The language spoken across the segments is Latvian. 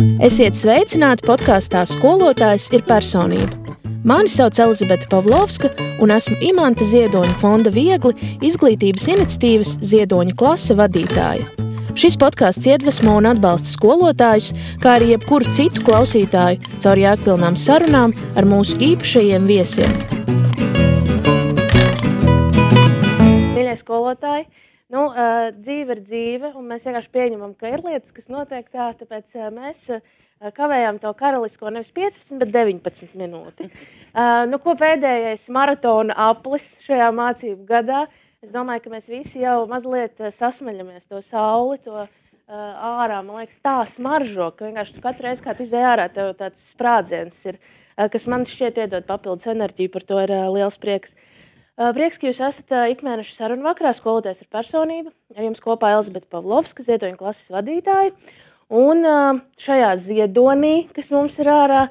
Esiet sveicināti podkāstā Skolotājs ir personība. Mani sauc Elizabete Pavlovska un esmu Imanta Ziedoņa fonda Viegli izglītības iniciatīvas Ziedoņa klase vadītāja. Šis podkāsts iedvesmo un atbalsta skolotājus, kā arī jebkuru citu klausītāju caur jēgpilnām sarunām ar mūsu īpašajiem viesiem. Mīļie skolotāji, dzīve ir dzīve, un mēs vienkārši pieņemam, ka ir lietas, kas notiek tā, tāpēc mēs kavējām to karalisko nevis 15, bet 19 minūti. Ko pēdējais maratona aplis šajā mācību gadā? Es domāju, ka mēs visi jau mazliet sasmeļamies to sauli, to ārā, man liekas, tā smaržo, ka vienkārši katru reizi, kā tu izēj ārā, tev tāds sprādziens ir, kas man šķiet iedod papildus enerģiju, par to ir liels prieks. Prieks, ka jūs esat ikmēneša sarunu vakarā Skolotājs ir personība. Ar jums kopā Elizabete Pavlovska, Ziedoņa klases vadītāja. Un šajā ziedonī, kas mums ir ārā,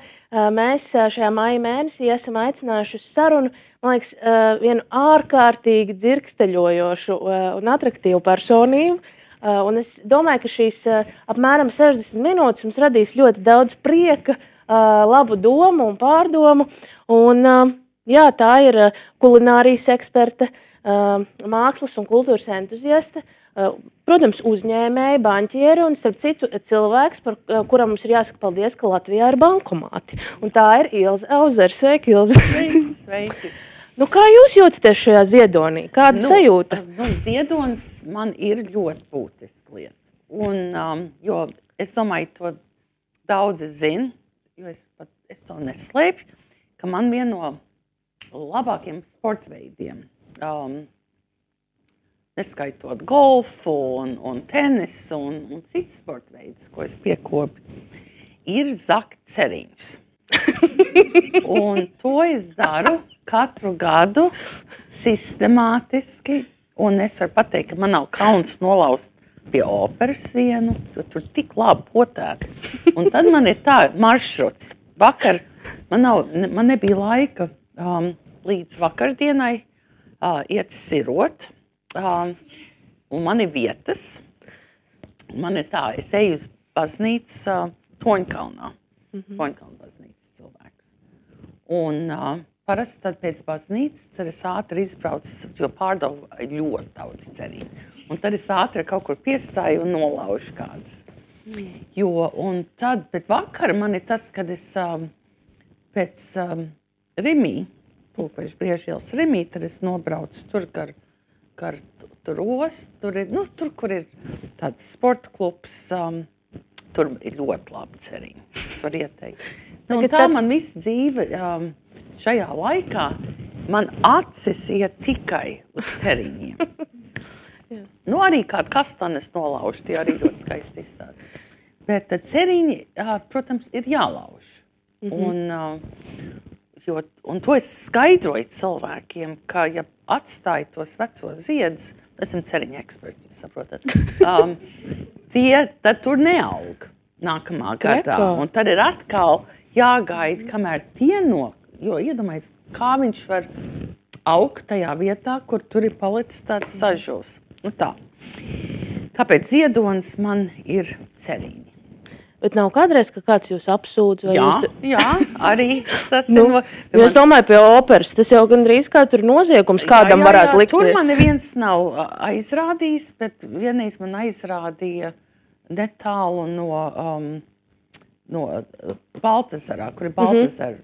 mēs šajā maija mēnesī esam aicinājuši uz sarunu, man liekas, vienu ārkārtīgi dzirksteļojošu un atraktīvu personību. Un es domāju, ka šīs apmēram 60 minūtes mums radīs ļoti daudz prieka, labu domu un pārdomu. Un jā, tā ir kulinārijas eksperte, mākslas un kultūras entuziaste, protams, uzņēmēja, banķiere un, starp citu, cilvēks, par kuram mums ir jāsaka paldies, ka Latvijā ir bankomāti. Un tā ir Ilze Auzere. Sveiki, Ilze! Sveiki! Kā jūs jūtaties šajā ziedonī? Kāda sajūta? Ziedonis man ir ļoti būtiska lieta. Un, jo es domāju, to daudzi zina, jo es to neslēpju, ka man viena no labākiem sportveidiem, neskaitot golfu un tenisu un citas sportveidus, ko es piekopju, ir zakt ceriņus. Un to es daru katru gadu sistemātiski, un es varu pateikt, ka man nav kauns nolaust pie operas vienu, jo tur tik labi potēt. Un tad man ir tā maršruts. Vakar man nebija laika līdz vakardienai iet sirot, un man ir vietas. Man ir tā, es eju uz baznīcu Toņkalnā. Toņkalna baznīcas cilvēks. Un parasti tad pēc baznīcas es ātri izbraucu, jo pārdevu ļoti daudz cerību. Un tad es ātri kaut kur piestāju un nolaužu kādus. Bet vakar man ir tas, kad es pēc Rimī, Pulkveža Briežielas Rimī, tad es nobraucu tur gar tur ostu, tur, kur ir tāds sporta klubs, tur ir ļoti labi ceriņi. Es varu ieteikt. Man visa dzīve šajā laikā, man acis iet tikai uz ceriņiem. Arī kādu kastanes nolauž, tie arī ļoti skaisti izstāst. Bet ceriņi, protams, ir jālauž. Un to es skaidroju cilvēkiem, ka, ja atstāju tos vecos ziedus, esam ceriņa eksperti, jūs saprotat, tad tur neaug nākamā gadā. Un tad ir atkal jāgaida, kamēr tie jo iedomājies, kā viņš var augt tajā vietā, kur tur ir palicis tāds sažuvs. Tā. Tāpēc ziedonis man ir ceriņi. Bet nav kādreiz, ka kāds jūs apsūdz? Jā, arī tas ir. Es domāju, pie operas, tas jau gandrīz kā tur noziegums kādam varētu likties. Tur man neviens nav aizrādījis, bet vienreiz man aizrādīja netālu no Baltazarā, kur ir Baltazara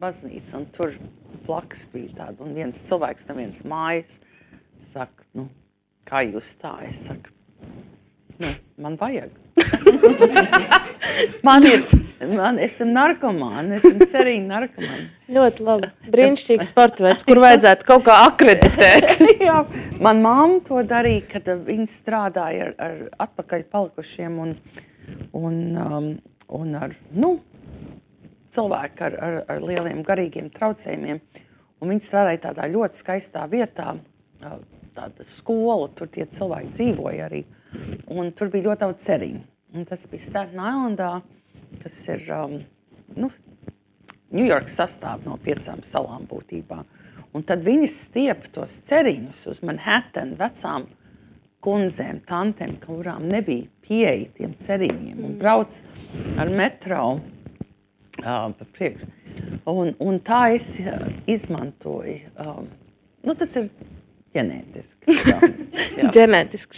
baznīca, un tur blakus bija tāda, un viens cilvēks no vienas mājas saka, kā jūs tā? Es saku, man vajag. Esam narkomāni, esam ceriņu narkomāni. Ļoti labi. Brīnišķīgs sporta veids, kur vajadzētu kaut kā akreditēt. Jā, man mamma to darīja, kad viņa strādāja ar atpakaļ palikušiem un ar cilvēku ar lieliem garīgiem traucējumiem. Un viņa strādāja tādā ļoti skaistā vietā, tāda skola, tur tie cilvēki dzīvoja arī. Un tur bija ļoti daudz ceriņu. Un tas bija Staten Islandā, kas ir Ņujorkas sastāv no 5 salām būtībā. Un tad viņi stiep tos ceriņus uz Manhattan vecām kundzēm, tantēm, kurām nebija pieeja tiem cerīņiem un brauc ar metro pa priekšu. Un tā es izmantoju. Tas ir ģenētiski.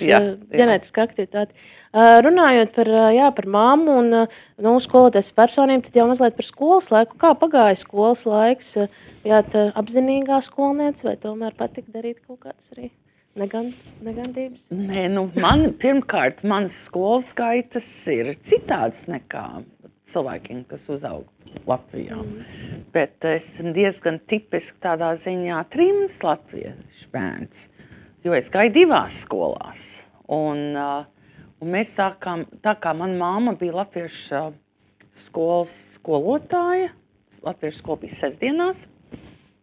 Jā. Ģenētiska aktivitāte. Runājot par mammu un skoloties personību, tad jau mazliet par skolas laiku. Kā pagāja skolas laiks? Bijāt apzinīgā skolniece vai tomēr patika darīt kaut kādas arī negandības? Nē, pirmkārt, manas skolas gaitas ir citādas nekā cilvēkiem, kas uzaug Latvijā. Bet esmu diezgan tipiski tādā ziņā trims latviešu bērns, jo es gāju 2 skolās. Un mēs sākām, tā kā mana mamma bija latviešu skolas skolotāja, latviešu skola bija sestdienās,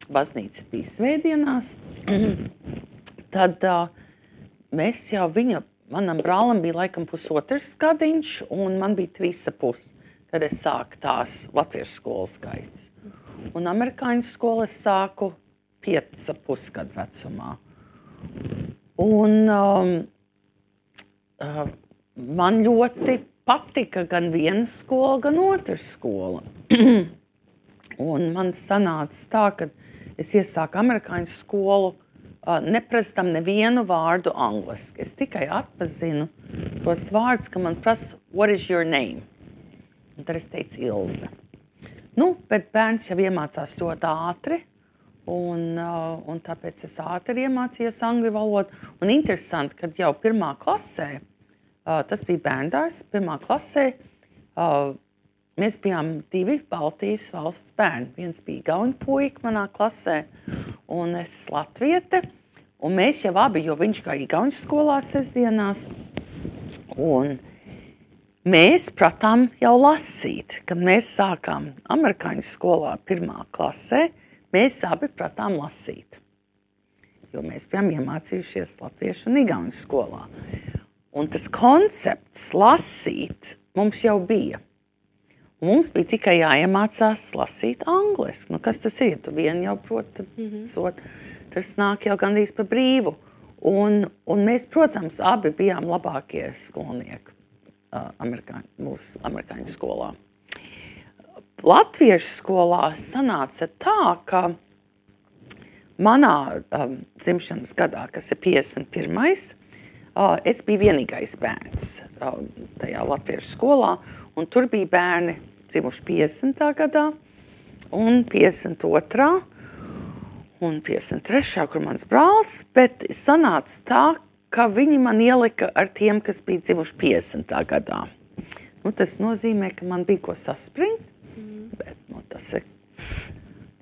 baznīca bija svētdienās, tad mēs jau manam brālim bija laikam 1,5 gadiņš, un man bija 3,5. Kad es sāku tās latviešu skolas gaitas. Un amerikāņu skolu es sāku 5,5 gadu vecumā. Un man ļoti patika gan viena skola, gan otra skola. Un man sanāca tā, ka es iesāku amerikāņu skolu, neprastam nevienu vārdu angliski. Es tikai atpazinu tos vārdus, ka man prasa, what is your name? Un tad es teicu Ilze. Bet bērns jau iemācās ļoti ātri, un tāpēc es ātri iemācījos angļu valodu. Un interesanti, kad jau 1. klasē, tas bija bērndārs, 1. klasē, mēs bijām 2 Baltijas valsts bērni. Viens bija igauņu puika manā klasē, un es latviete. Un mēs jau abi, jo viņš gāja igauņu skolā sestdienās, un mēs pratām jau lasīt. Kad mēs sākām amerikāņu skolā 1. klasē, mēs abi pratām lasīt. Jo mēs bijām iemācījušies latviešu un igauņu skolā. Un tas koncepts lasīt mums jau bija. Un mums bija tikai jāiemācās lasīt angliski. Kas tas ir? Tu vien jau proti, tad tas nāk jau gandrīz pa brīvu. Un mēs, protams, abi bijām labākie skolnieki. Mūsu amerikāņu skolā. Latviešu skolā sanāca tā, ka manā dzimšanas gadā, kas ir 51. Es biju vienīgais bērns tajā latviešu skolā, un tur bija bērni dzimuši 50. gadā, un 52. un 53. kur mans brālis, bet sanāca tā, ka viņi man ielika ar tiem, kas bija dzimuši 50. gadā. Tas nozīmē, ka man bija ko saspringt, bet tas ir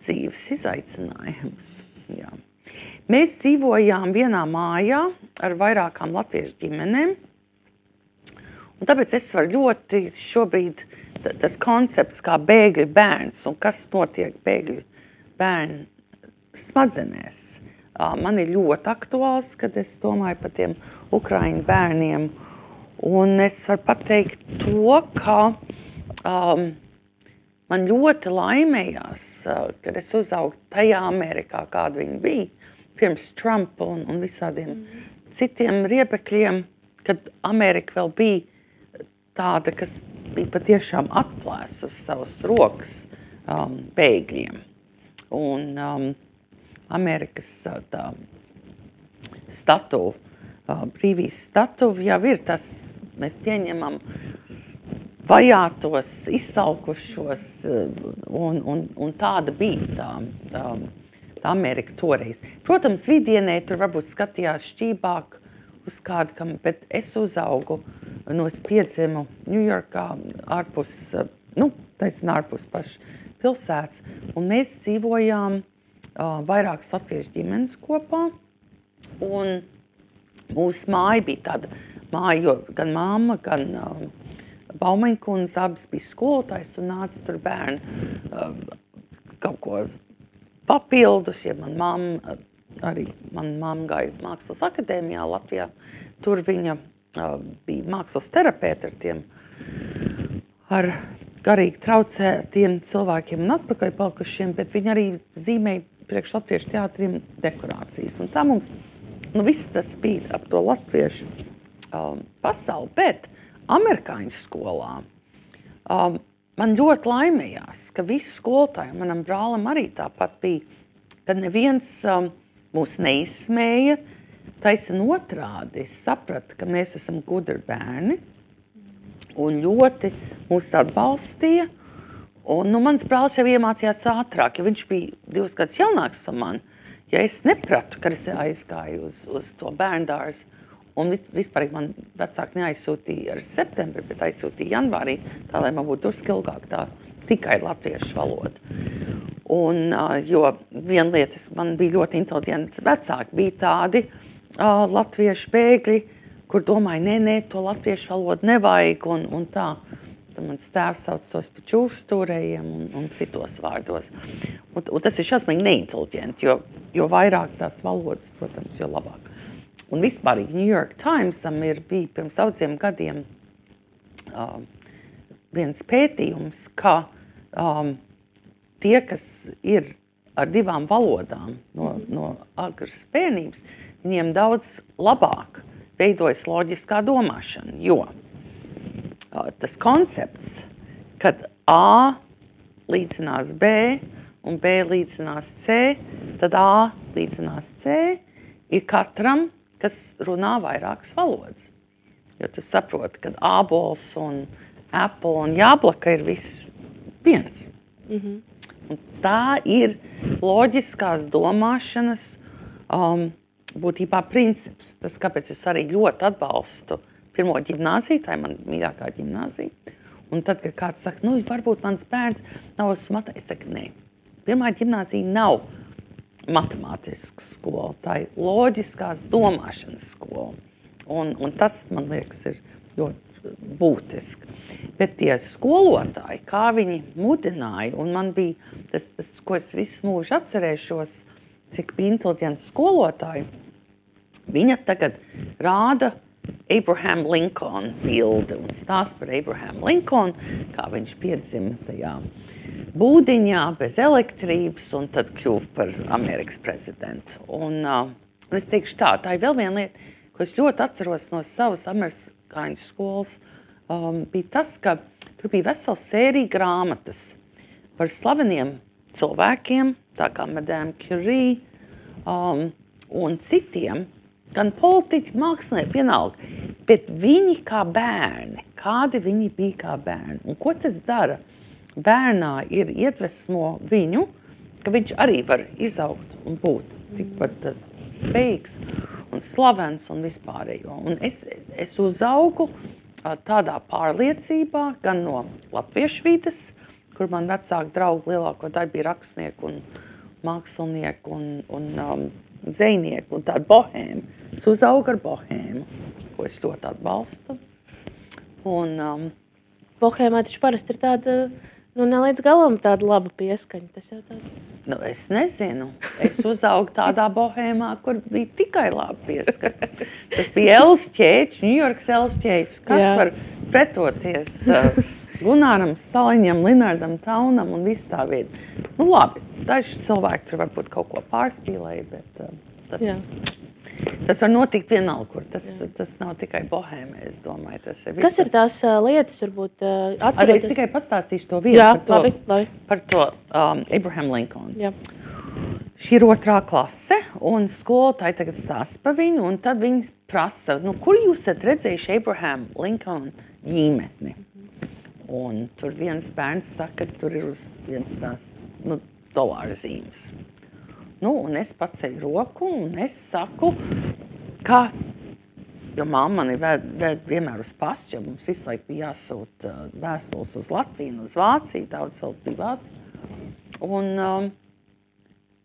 dzīves izaicinājums. Jā. Mēs dzīvojām vienā mājā ar vairākām latviešu ģimenēm, un tāpēc es varu ļoti šobrīd tas koncepts kā bēgļu bērns un kas notiek bēgļu bērnu smadzenēs. Man ir ļoti aktuāls, kad es domāju par tiem ukraiņu bērniem. Un es varu pateikt to, ka man ļoti laimējās, kad es uzaugu tajā Amerikā, kāda viņa bija, pirms Trumpa un visādiem citiem riebekļiem, kad Amerika vēl bija tāda, kas bija patiešām atplēsus savas rokas bēgļiem. Un Amerikas tā statuva, brīvības statuva jau ir tas, mēs pieņemam vajātos, izsalkušos, un tāda bija tā Amerika toreiz. Protams, vidienē tur varbūt skatījās šķībāk uz kādu, bet es uzaugu, es piedzimu Ņujorkā, ārpus paša pilsētas, un mēs dzīvojām vairākas latviešu ģimenes kopā, un mūsu māja bija tāda māja, jo gan mamma, gan Baumeņkundze abas bija skolotājs un nāca tur bērni kaut ko papildus, ja mana mamma gāja mākslas akadēmijā Latvijā, tur viņa bija mākslas terapeite ar tiem, ar garīgi traucētiem cilvēkiem un atpakaļ palikušiem, bet viņa arī zīmēja priekš latviešu teātriem dekorācijas. Un tā mums viss tas bija ap to latviešu pasauli, bet amerikāņu skolā man ļoti laimējās, ka visi skolotāji, manam brālim arī tāpat bija, kad neviens mūs neizsmēja, taisn otrādi. Es sapratu, ka mēs esam gudri bērni un ļoti mūs atbalstīja. Un, mans brālis jau iemācījās ātrāk, jo viņš bija 2 gadus jaunāks par mani. Ja es nepratu, kad es aizgāju uz to bērndārzu, un vispār man vecāki neaizsūtīja ar septembri, bet aizsūtīja janvārī, tā, lai man būtu drusku ilgāk tā tikai latviešu valoda. Un, jo viena lieta, man bija ļoti inteliģenti vecāki, bija tādi latviešu bēgļi, kur domāja, nē, to latviešu valodu nevajag, un tā. Tad mans tēvs sauc tos pa čūstūrējiem un citos vārdos. Un tas ir šausmīgi neinteliģenti, jo vairāk tās valodas, protams, jo labāk. Un vispār New York Timesam bija pirms daudziem gadiem viens pētījums, ka tie, kas ir ar 2 valodām no agras bērnības, viņiem daudz labāk veidojas loģiskā domāšana, jo tas koncepts, kad A līdzinās B un B līdzinās C, tad A līdzinās C ir katram, kas runā vairākas valodas. Jo tu saproti, ka ābols un apple un jāblaka ir viss viens. Un tā ir loģiskās domāšanas būtībā princips. Tas, kāpēc es arī ļoti atbalstu pirmo ģimnāziju, tā ir man mīļākā ģimnāzija. Un tad, kad kāds saka, varbūt mans bērns nav uz matē, es saku, nē. Pirmā ģimnāzija nav matemātiska skola, tā ir loģiskās domāšanas skola. Un tas, man liekas, ir ļoti būtiski. Bet tie skolotāji, kā viņi mudināja, un man bija tas, ko es visu mūžu atcerēšos, cik bija inteliģents skolotāji, viņa tagad rāda Abraham Lincoln bildi un stāst par Abraham Lincoln, kā viņš piedzima tajā būdiņā bez elektrības un tad kļuva par Amerikas prezidentu. Un es teikšu tā ir vēl viena lieta, ko es ļoti atceros no savas amerikāņu skolas, bija tas, ka tur bija vesela sērija grāmatas par slaveniem cilvēkiem, tā kā Madame Curie un citiem, gan politiķi, mākslinieki, vienalga, bet viņi kā bērni, kādi viņi bija kā bērni. Un ko tas dara? Bērnā ir iedvesmo viņu, ka viņš arī var izaugt un būt tikpat spējīgs un slavens un vispārējo. Un es uzaugu tādā pārliecībā, gan no latviešu vides, kur man vecāki draugi lielāko daļu bija rakstnieki un mākslinieki un dzejnieki un tāda bohēma. Es uzaugu ar bohēmu, ko es ļoti atbalstu. Un, bohēmā taču parasti ir tāda, ne līdz galam tāda laba pieskaņa. Tas jau tāds... Es nezinu. Es uzaugu tādā bohēmā, kur bija tikai laba pieskaņa. Tas bija Els Ķēķis, Ņujorkas Els Ķēķis. Kas var pretoties Gunāram Saliņam, Linardam Taunam un visu tā vietu. Labi, daži cilvēki tur varbūt kaut ko pārspīlēja, bet tas var notikt vienalga, kur. Tas nav tikai bohēmē, es domāju. Kas ir tās lietas, varbūt atceroties? Arī es tikai pastāstīšu to vienu par to Abraham Lincoln. Jā. Šī ir 2. klase, un skolotāji tagad stāsta par viņu, un tad viņi prasa, kur jūs esat redzējuši Abraham Lincoln ģimeni? Un tur viens bērns saka, ka tur ir uz viens tās dolāra zīmes. Un es paceļu roku, un es saku, ka, jo mamma mani ved vienmēr uz pastu, jo mums visu laiku bija jāsūt vēstules uz Latviju, uz Vāciju, daudz vēl bija Vācija.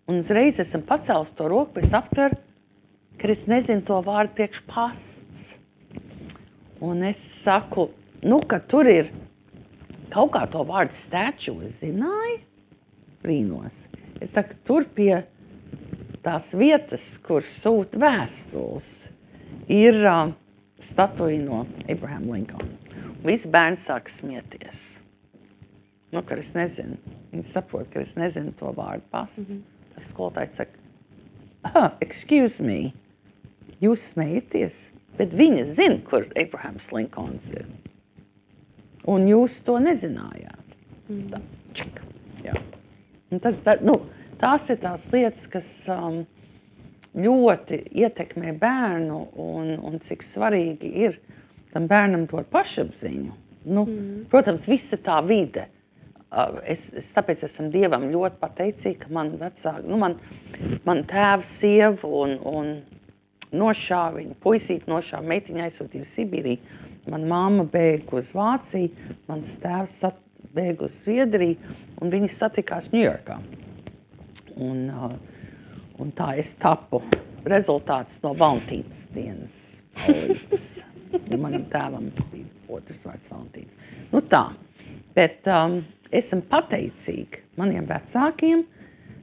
Un uzreiz esam pacēlis to roku, bet es aptveru, ka es nezinu to vārdu priekš pasts. Un es saku, ka tur ir kaut kā to vārdu statue, es zināju, brīnos. Es saku, tur pie tās vietas, kur sūta vēstules, ir statuja no Abraham Lincoln. Visi bērni sāk smieties. Ka es nezinu. Viņi saprot, ka es nezinu to vārdu pasts. Tas skolotājs saka, excuse me, jūs smejaties, bet viņa zina, kur Abrahams Linkolns ir. Un jūs to nezinājāt. Tā, čik, jā. Un tās ir tās lietas, kas ļoti ietekmē bērnu un cik svarīgi ir tam bērnam dot pašapziņu. Protams, visa tā vide. Es tāpēc esmu Dievam ļoti pateicīga, ka man vecāki, man tēvs, sieva un nošāva viņu, puisīti nošāva, meitiņa aizsūtīja uz Sibīriju. Man mamma bēga uz Vāciju, mans tēvs bēga uz Zviedriju, un viņi satikās Ņujorkā. Un tā es tapu rezultāts no Valentīnas dienas paulītes. Manam tēvam bija otrs vārds Valentīns. Tā, bet esam pateicīgi maniem vecākiem,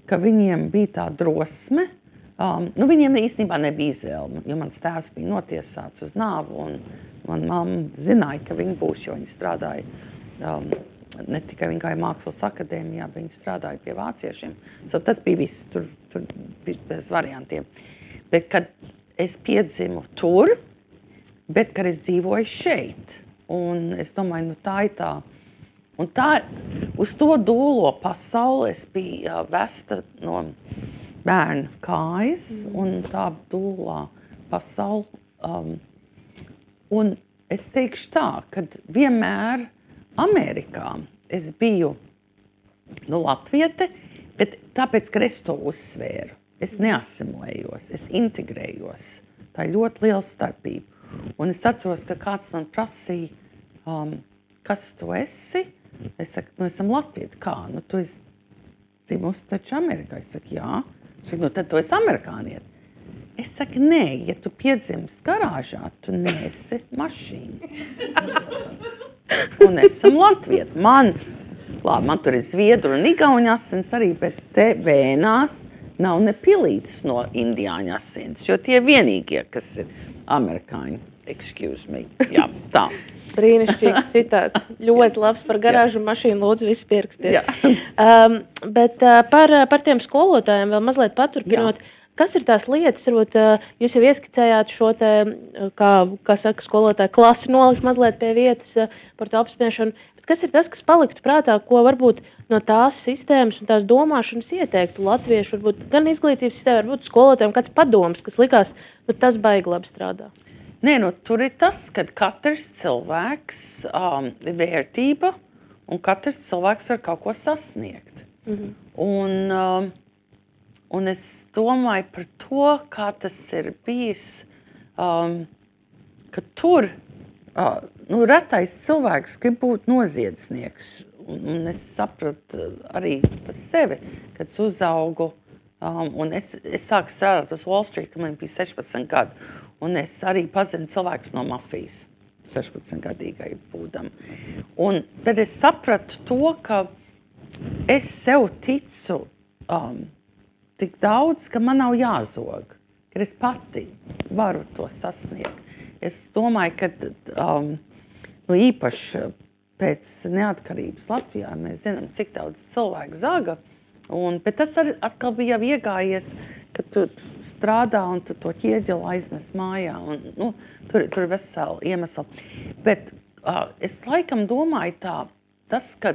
ka viņiem bija tā drosme. Viņiem īstenībā nebija izvēle, jo mans tēvs bija notiesāts uz nāvu, un man mamma zināja, ka viņi būs, jo viņi strādāja, ne tikai viņi gāja mākslas akadēmijā, bet viņi strādāja pie vāciešiem. Tas bija viss, tur bija bez variantiem. Bet, kad es piedzimu tur, bet, kad es dzīvoju šeit, un es domāju, tā ir tā. Un tā, uz to dūlo pasauli es biju vesta no bērnu kājas, un tā dūlā pasauli. Un es teikšu tā, kad vienmēr Amerikā es biju latviete, bet tāpēc, ka es to uzsvēru. Es neasimilējos, es integrējos. Tā ir ļoti liela starpība. Un es atceros, ka kāds man prasīja, kas tu esi? Es saku, esam latvieti. Kā? Tu esi dzimusi taču Amerikā. Es saku, jā. Tad tu esi amerikānieti. Es saku, nē, ja tu piedzimst garāžā, tu neesi mašīna. Un esam latvieti. Man tur ir zviedru un igauņu asins arī, bet te vēnās nav ne pilītes no indiāņu asins, jo tie vienīgie, kas ir amerikāņi. Excuse me. Jā, tā. Brīnišķīgs citāts. Ļoti labs par garāžu un mašīnu, lūdzu, visi pierakstiet. Bet par tiem skolotājiem vēl mazliet paturpinot. Kas ir tās lietas, varbūt jūs jau ieskicējāt šo te, kā saka skolotāji, klasi nolikt mazliet pie vietas par to apspriešanu, bet kas ir tas, kas paliktu prātā, ko varbūt no tās sistēmas un tās domāšanas ieteiktu latviešu, varbūt gan izglītības sistēma, varbūt skolotājiem kāds padoms, kas likās, tas baigi labi strādā? Nē, tur ir tas, ka katrs cilvēks ir vērtība un katrs cilvēks var kaut ko sasniegt. Un es domāju par to, kā tas ir bijis, ka tur retais cilvēks grib būt noziedznieks. Un es sapratu arī par sevi, kad es uzaugu. Un es sāku strādāt uz Wall Street, kad man bija 16 gadi. Un es arī pazinu cilvēkus no mafijas, 16-gadīgai būdam. Bet es sapratu to, ka es sev ticu tik daudz, ka man nav jāzog, ka es pati varu to sasniegt. Es domāju, ka īpaši pēc neatkarības Latvijā mēs zinām, cik daudz cilvēku zaga. Bet tas atkal bija jau iegājies, ka tu strādā un tu to ķieģeli aiznes mājā. Tur ir vesela iemesla. Bet es laikam domāju tas, ka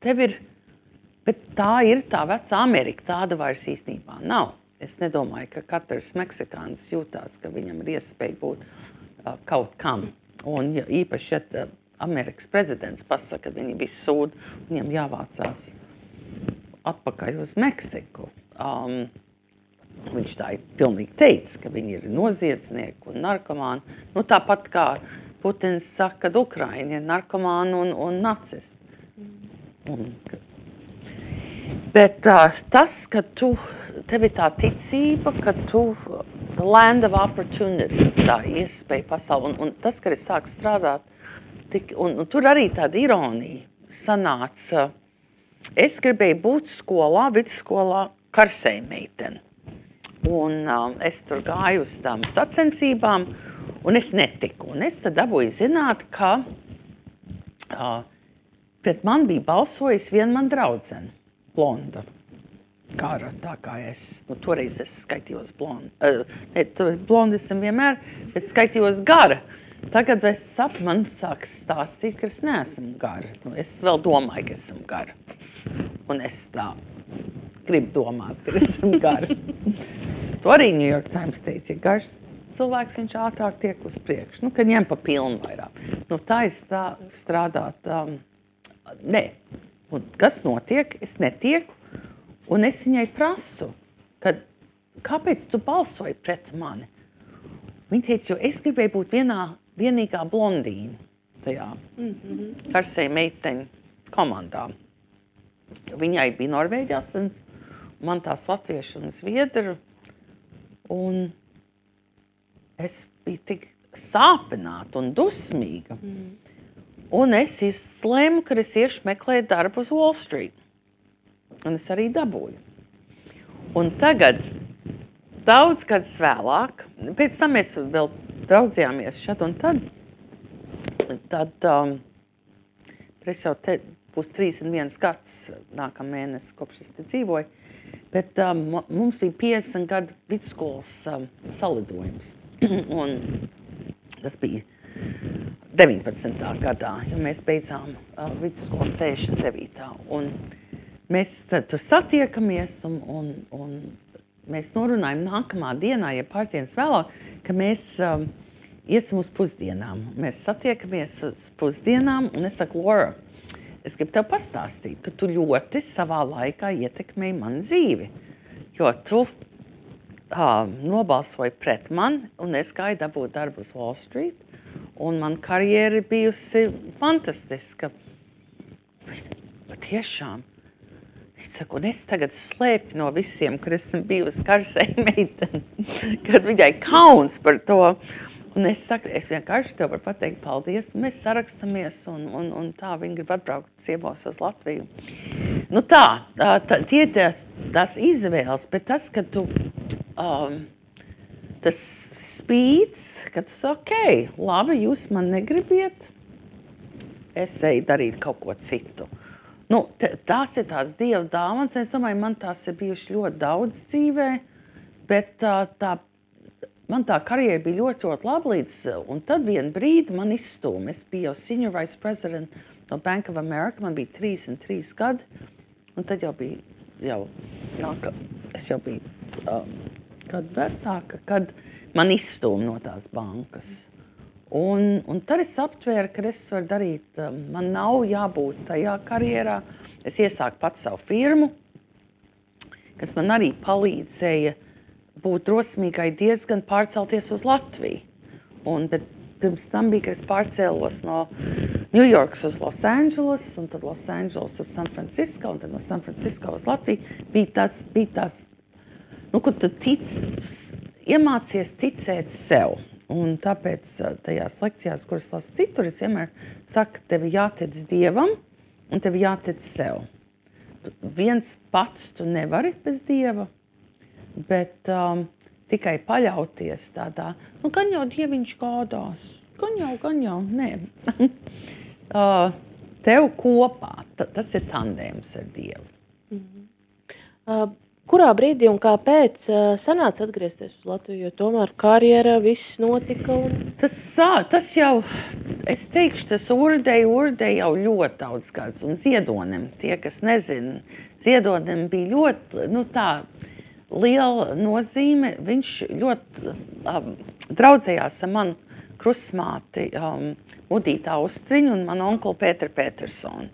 tev ir, bet tā ir tā vecā Amerika, tāda vairs īstenībā nav. Es nedomāju, ka katrs meksikāns jūtās, ka viņam ir iespēja būt kaut kam. Un īpaši, ja Amerikas prezidents pasaka, ka viņi visi sūd, viņam jāvācās atpakaļ uz Meksiku. Viņš tā pilnīgi teica, ka viņi ir noziedznieki un narkomāni. Tāpat kā Putins saka, ka Ukraiņi ir narkomāni un nacisti. Bet tas, ka tev ir tā ticība, ka tu land of opportunity, tā iespēja pasauli. Un tas, ka es sāku strādāt, un tur arī tāda ironija sanāca. Es gribēju būt skolā, vidusskolā karsējmeiteni. Un es tur gāju uz tām sacensībām, un es netiku. Un es tad dabūju zināt, ka pret man bija balsojis viena man draudzene, blonda. gara, tā kā es, toreiz es skaitījos blondi esam vienmēr, bet skaitījos gara. Tagad es sapu, man sāk stāstīt, ka es neesmu gara. Es vēl domāju, ka esmu gara. Un es tā gribu domāt, ka esmu gara. To arī New York Times teica, ja garš cilvēks, viņš ātrāk tiek uz priekšu. Kad ņem pa pilnu vairāk. Tā es tā strādāt, nē. Un kas notiek? Es netieku. Un es viņai prasu, kāpēc tu balsoji pret mani? Viņa teica, jo es gribēju būt vienīgā blondīna tajā karsēja meiteņu komandā. Viņai bija Norvēģi asins, man tās latviešu un zviedru. Un es biju tik sāpināta un dusmīga. Un es izlēmu, ka es iešu meklēt darbu uz Wall Street. Un es arī dabūju. Un tagad, daudz gadus vēlāk, pēc tam mēs vēl draudzījāmies šad un tad es jau te būs 31 gads nākamēnes, kopš es te dzīvoju, bet mums bija 50 gadu vidusskolas salidojums. Un tas bija 19. gadā, jo mēs beidzām vidusskolu 69. Un mēs tur satiekamies un mēs norunājam nākamā dienā, ja pāris dienas vēlāk, ka mēs iesim uz pusdienām. Mēs satiekamies uz pusdienām un es saku, Laura, es gribu tev pastāstīt, ka tu ļoti savā laikā ietekmēji manu dzīvi, jo tu nobalsoji pret mani un es gāju dabūt darbu uz Wall Street un man karjera bijusi fantastiska. Patiešām. Es saku, un es tagad slēpju no visiem, kur esmu bijusi karsēja meiteni, kad viņai kauns par to. Un es saku, es vienkārši tev varu pateikt paldies, un mēs sarakstamies, un tā viņi grib atbraukt ciemos uz Latviju. Tie tās izvēles, bet tas, ka tu, tas spīts, ka tu saki, labi, jūs man negribiet, es eju darīt kaut ko citu. Tās ir tās Dieva dāvanas. Es domāju, man tās ir bijuši ļoti daudz dzīvē, bet man tā karjera bija ļoti, ļoti laba līdz, un tad vienu brīdi man izstūma. Es biju jau senior vice president no Bank of America, man bija 33 gadi, un tad jau bija, es jau biju gadu vecāka, kad man izstūma no tās bankas. Un tad es aptvēru, ka es varu darīt, man nav jābūt tajā karjerā. Es iesāku pats savu firmu, kas man arī palīdzēja būt drosmīgai diezgan pārcelties uz Latviju. Bet pirms tam bija, ka es pārcēlos no New Yorkas uz Los Angeles, un tad Los Angeles uz San Francisco, un tad no San Francisco uz Latviju. Bija tās, kur tu iemācies ticēt sev. Un tāpēc tajās lekcijās, kuras lasu citur, es vienmēr saku, tev jātic Dievam un tev jātic sev. Viens pats tu nevari bez Dieva, bet tikai paļauties tādā, gan jau Dieviņš gādās, gan jau, nē. Tev kopā, tas ir tandēms ar Dievu. Kurā brīdī un kāpēc sanāca atgriezties uz Latviju, jo tomēr karjera viss notika? Tas jau, es teikšu, tas urdei jau ļoti daudz gadus, un Ziedonim, tie, kas nezina, Ziedonim bija ļoti, tā liela nozīme, viņš ļoti draudzējās ar manu krustmāti Mudītu Austriņu un manu onkuli Pēteru Petersonu.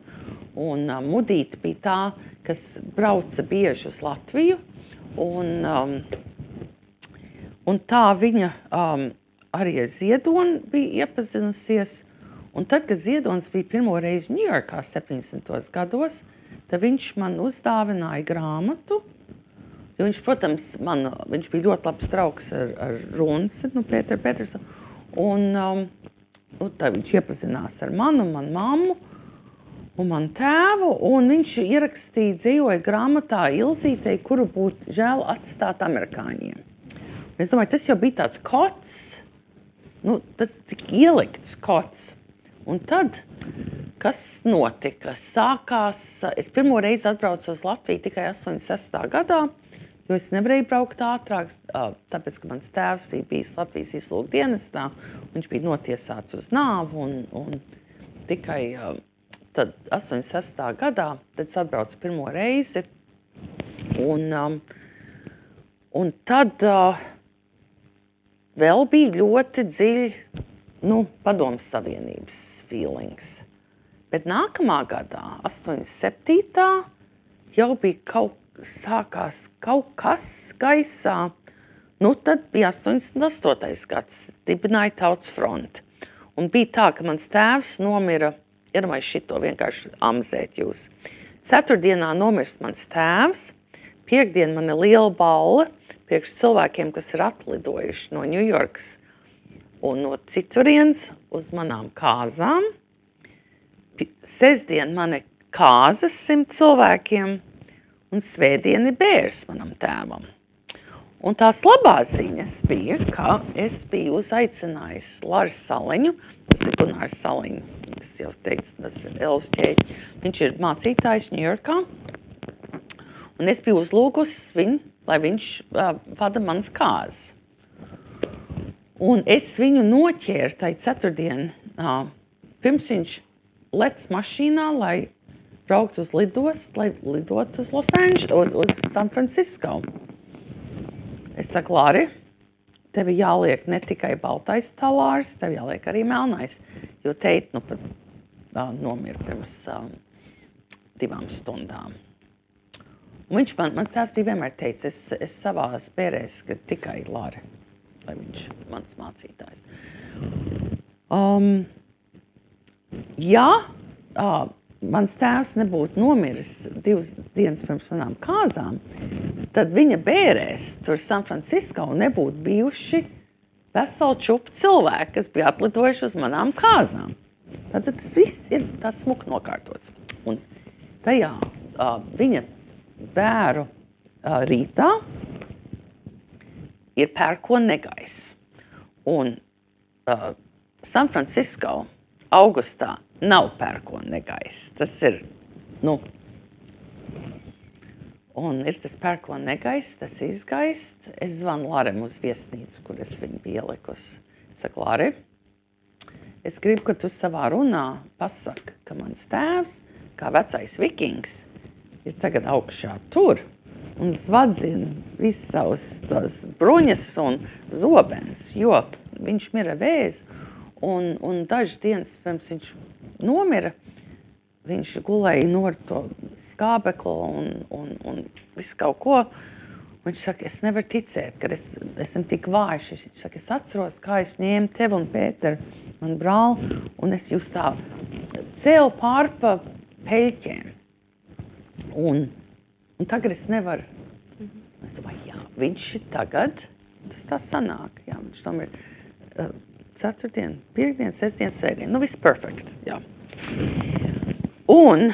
Un Mudīta bija tā, kas brauca bieži uz Latviju, un tā viņa arī ar Ziedoni bija iepazinusies. Un tad, kad Ziedonis bija pirmo reizi Ņujorkā 70. gados, tad viņš man uzdāvināja grāmatu, jo viņš, protams, viņš bija ļoti labs draugs ar Runsi, Pēteru Petersonu, un tad viņš iepazinās ar manu un manu mammu, un manu tēvu, un viņš ierakstīja, dzīvoja grāmatā Ilzītei, kuru būtu žēl atstāt amerikāņiem. Un es domāju, tas jau bija tāds kots, tas tik ielikts kots. Un tad, kas notika? Sākās, es pirmo reizi atbraucu uz Latviju tikai 86. gadā, jo es nevarēju braukt ātrāk, tāpēc, ka mans tēvs bija bijis Latvijas izlūkdienestā, viņš bija notiesāts uz nāvu, un tikai tad 86. gadā, tad es atbraucu pirmo reizi, un tad vēl bija ļoti dziļi, Padomes Savienības feelings. Bet nākamā gadā, 87. jau bija sākās kaut kas gaisā. Tad bija 88. gads, dibināja Tautas fronti. Un bija tā, ka mans tēvs nomira, iedomājies šito vienkārši amzēt jūs. Ceturtdienā nomirst mans tēvs, piekdien man ir liela balle priekš cilvēkiem, kas ir atlidojuši no Ņujorkas un no citurienes uz manām kāzām. Sestdien man ir kāzas 100 cilvēkiem, un svētdien ir bērs manam tēvam. Un tās labās ziņas bija, ka es biju uzaicinājis Lāru Saliņu, tas ir Gunārs Saliņu, es jau teicu, tas ir Elvis ķēķi. Viņš ir mācītājs Ņujorkā, un es biju uzlūgusi viņu, lai viņš vada manas kāzas. Un es viņu noķēru tai ceturtdien, pirms viņš lec mašīnā, lai braukt uz lidostu, lai lidot uz uz San Francisco. Es saku, Lāri, tev jāliek ne tikai baltais talārs, tev jāliek arī melnais, jo teit pat nomira pirms 2 stundām. Un viņš mans tēvs bija vienmēr teicis, es savās bērēs gribu tikai Lāri, lai viņš mans mācītājs. Mans tēvs nebūtu nomiris 2 dienas pirms manām kāzām, tad viņa bērēs tur San Francisco nebūtu bijuši veseli čupi cilvēki, kas bija atlidojuši uz manām kāzām. Tad tas viss ir tas smuki nokārtots. Un tajā viņa bēru rītā ir pērkona negaiss. Un San Francisco augustā nav pērkona negaiss. Tas ir, un ir tas pērkona negaiss, tas izgaist. Es zvanu Lārem uz viesnīcu, kur es viņu biju ielikusi. Saku, Lāri, es gribu, ka tu savā runā pasaki, ka mans tēvs, kā vecais vikings, ir tagad augšā tur un zvadzina visus savus tās bruņas un zobens, jo viņš mira vēzi. Un dažas dienas pirms viņš nomira, viņš gulēja no to skābeklu un visu kaut ko. Viņš saka, es nevaru ticēt, ka esmu tik vājš. Viņš saka, es atceros, kā es ņēmu tevi un Pēteru, man brāli, un es jūs tā cēlu pār pa peļķiem. Un tagad es nevaru. Es domāju, jā, viņš ir tagad, tas tā sanāk. Jā, viņš tam ir ceturtdien, piekdien, sestdien, svētdien. Viss perfekt, jā. Un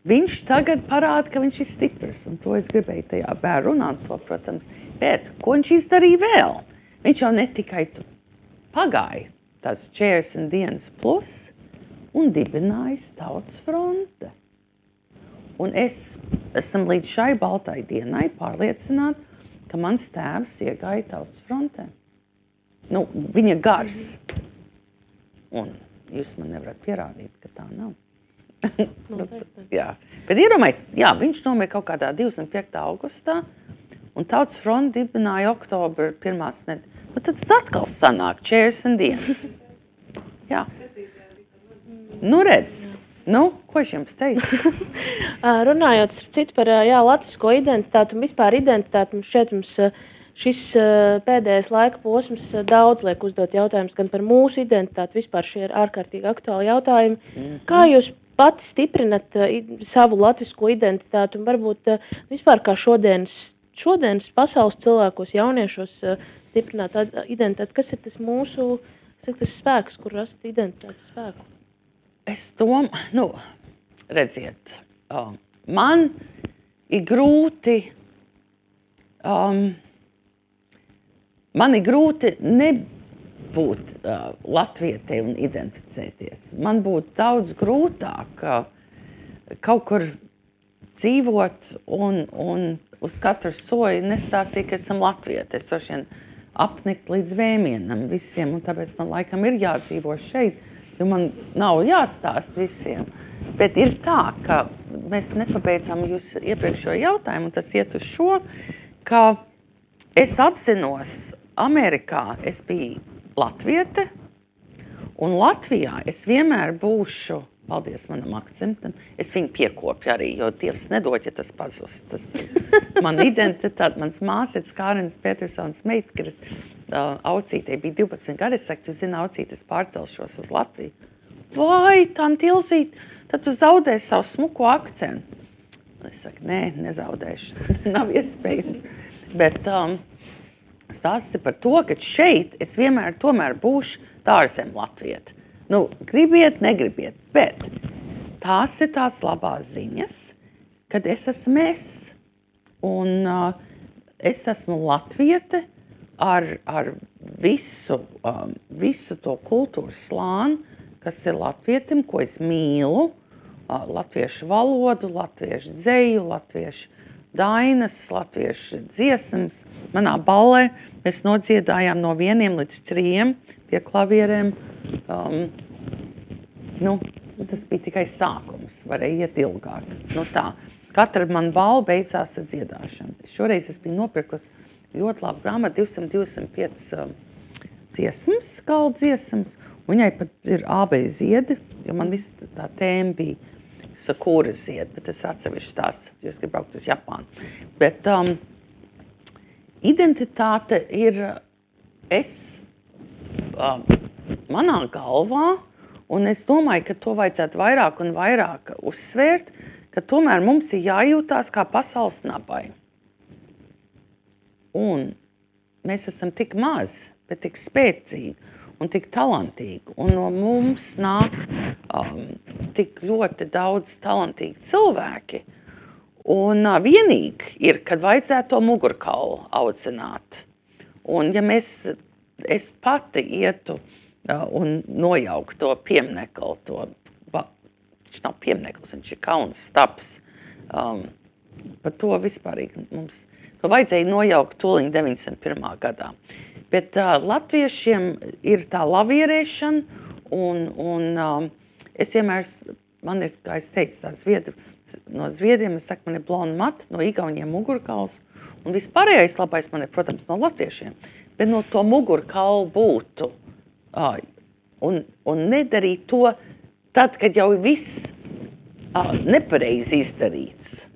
viņš tagad parāda, ka viņš ir stiprs. Un to es gribēju tajā bērnu runāt to, protams. Bet ko viņš izdarīja vēl? Viņš jau ne tikai pagāja tās 40 dienas plus un dibinājis Tautas fronte. Un es esmu līdz šai baltai dienai pārliecināta, ka mans tēvs iegāja Tautas frontē. Viņa gars. Un jūs man nevarat pierādīt, ka tā nav. Jā. Bet iedomājies, viņš nomira kaut kādā 25. augustā, un Tautas fronte dibināja oktobra 1. nedēļa. Tad tas atkal sanāk 40 dienas. Jā. Redz. Ko es jums teicu? Runājot starp citu par latvisko identitāti un vispār identitāti, šeit mums šis pēdējais laika posms daudz liek uzdot jautājumus gan par mūsu identitāti, vispār šie ir ārkārtīgi aktuāli jautājumi. Kā jūs pati stiprinat savu latvisko identitāti un varbūt vispār kā šodienas pasaules cilvēkos, jauniešos stiprināt identitāti? Kas ir tas mūsu, tas spēks, kur rast identitātes spēku? Es domāju, redziet, man ir grūti, būt latvietei un identificēties. Man būtu daudz grūtāk kaut kur dzīvot un uz katru soju nestāstīt, ka esam latvieti. Es droši vien apnikt līdz vēmienam visiem, un tāpēc man laikam ir jādzīvo šeit, jo man nav jāstāst visiem. Bet ir tā, ka mēs nepabeidzām jūs iepriekšējo jautājumu, un tas iet uz šo, ka es apzinos, Amerikā es biju latviete, un Latvijā es vienmēr būšu, paldies manam akcentam, es viņu piekopju arī, jo Dievs nedod, ja tas pazust. Tas bija man identitāte, mans māsītes Kārins Petersons meitkaris, Aucītei bija 12 gadi, es saku, tu zini, Aucīt, es pārcelšos uz Latviju. Vai, tanti Ilzīt, tad tu zaudēsi savu smuko akcentu. Es saku, nē, nezaudēšu, nav iespējams. Bet stāsti par to, ka šeit es vienmēr tomēr būšu tārzem latvieti. Nu, gribiet, negribiet, bet tās ir tās labās ziņas, kad es esmu es. Un es esmu latviete ar visu to kultūras slāni, kas ir latvietim, ko es mīlu, latviešu valodu, latviešu dzeju, latviešu dainas, latviešu dziesmas. Manā ballē mēs nodziedājām no 1 līdz 3 pie klavierēm. Tas bija tikai sākums, varēja iet ilgāk. Tā. Katra man balva beidzās ar dziedāšanu. Šoreiz es biju nopirkusi ļoti labu grāmatu, 225 dziesmas, galda dziesmas. Viņai pat ir ābei ziedi, jo man viss tā tēma bija sakūra ziedi, bet tas ir atsevišķi tās, jo es gribu braukt uz Japānu. Bet identitāte ir manā galvā, un es domāju, ka to vajadzētu vairāk un vairāk uzsvērt, ka tomēr mums ir jājūtās kā pasaules nabai. Un mēs esam tik mazi, bet tik spēcīgi un tik talantīgi. Un no mums nāk tik ļoti daudz talantīgi cilvēki. Un vienīgi ir, kad vajadzētu to mugurkaulu audzināt. Un ja es pati ietu un nojauku to pieminekli, viņš nav piemineklis, viņš ir kauns staps. Par to vispārīgi mums, to vajadzēja nojaukt tūliņ 91. gadā. Bet latviešiem ir tā lavierēšana, un es vienmēr, man ir, kā es teicu, no Zviedriem, es saku, man ir blonda mata, no Igauniem mugurkauls, un vispārējais labais man ir, protams, no latviešiem. Bet no to mugurkaulu būtu un nedarīt to tad, kad jau viss nepareizi izdarīts.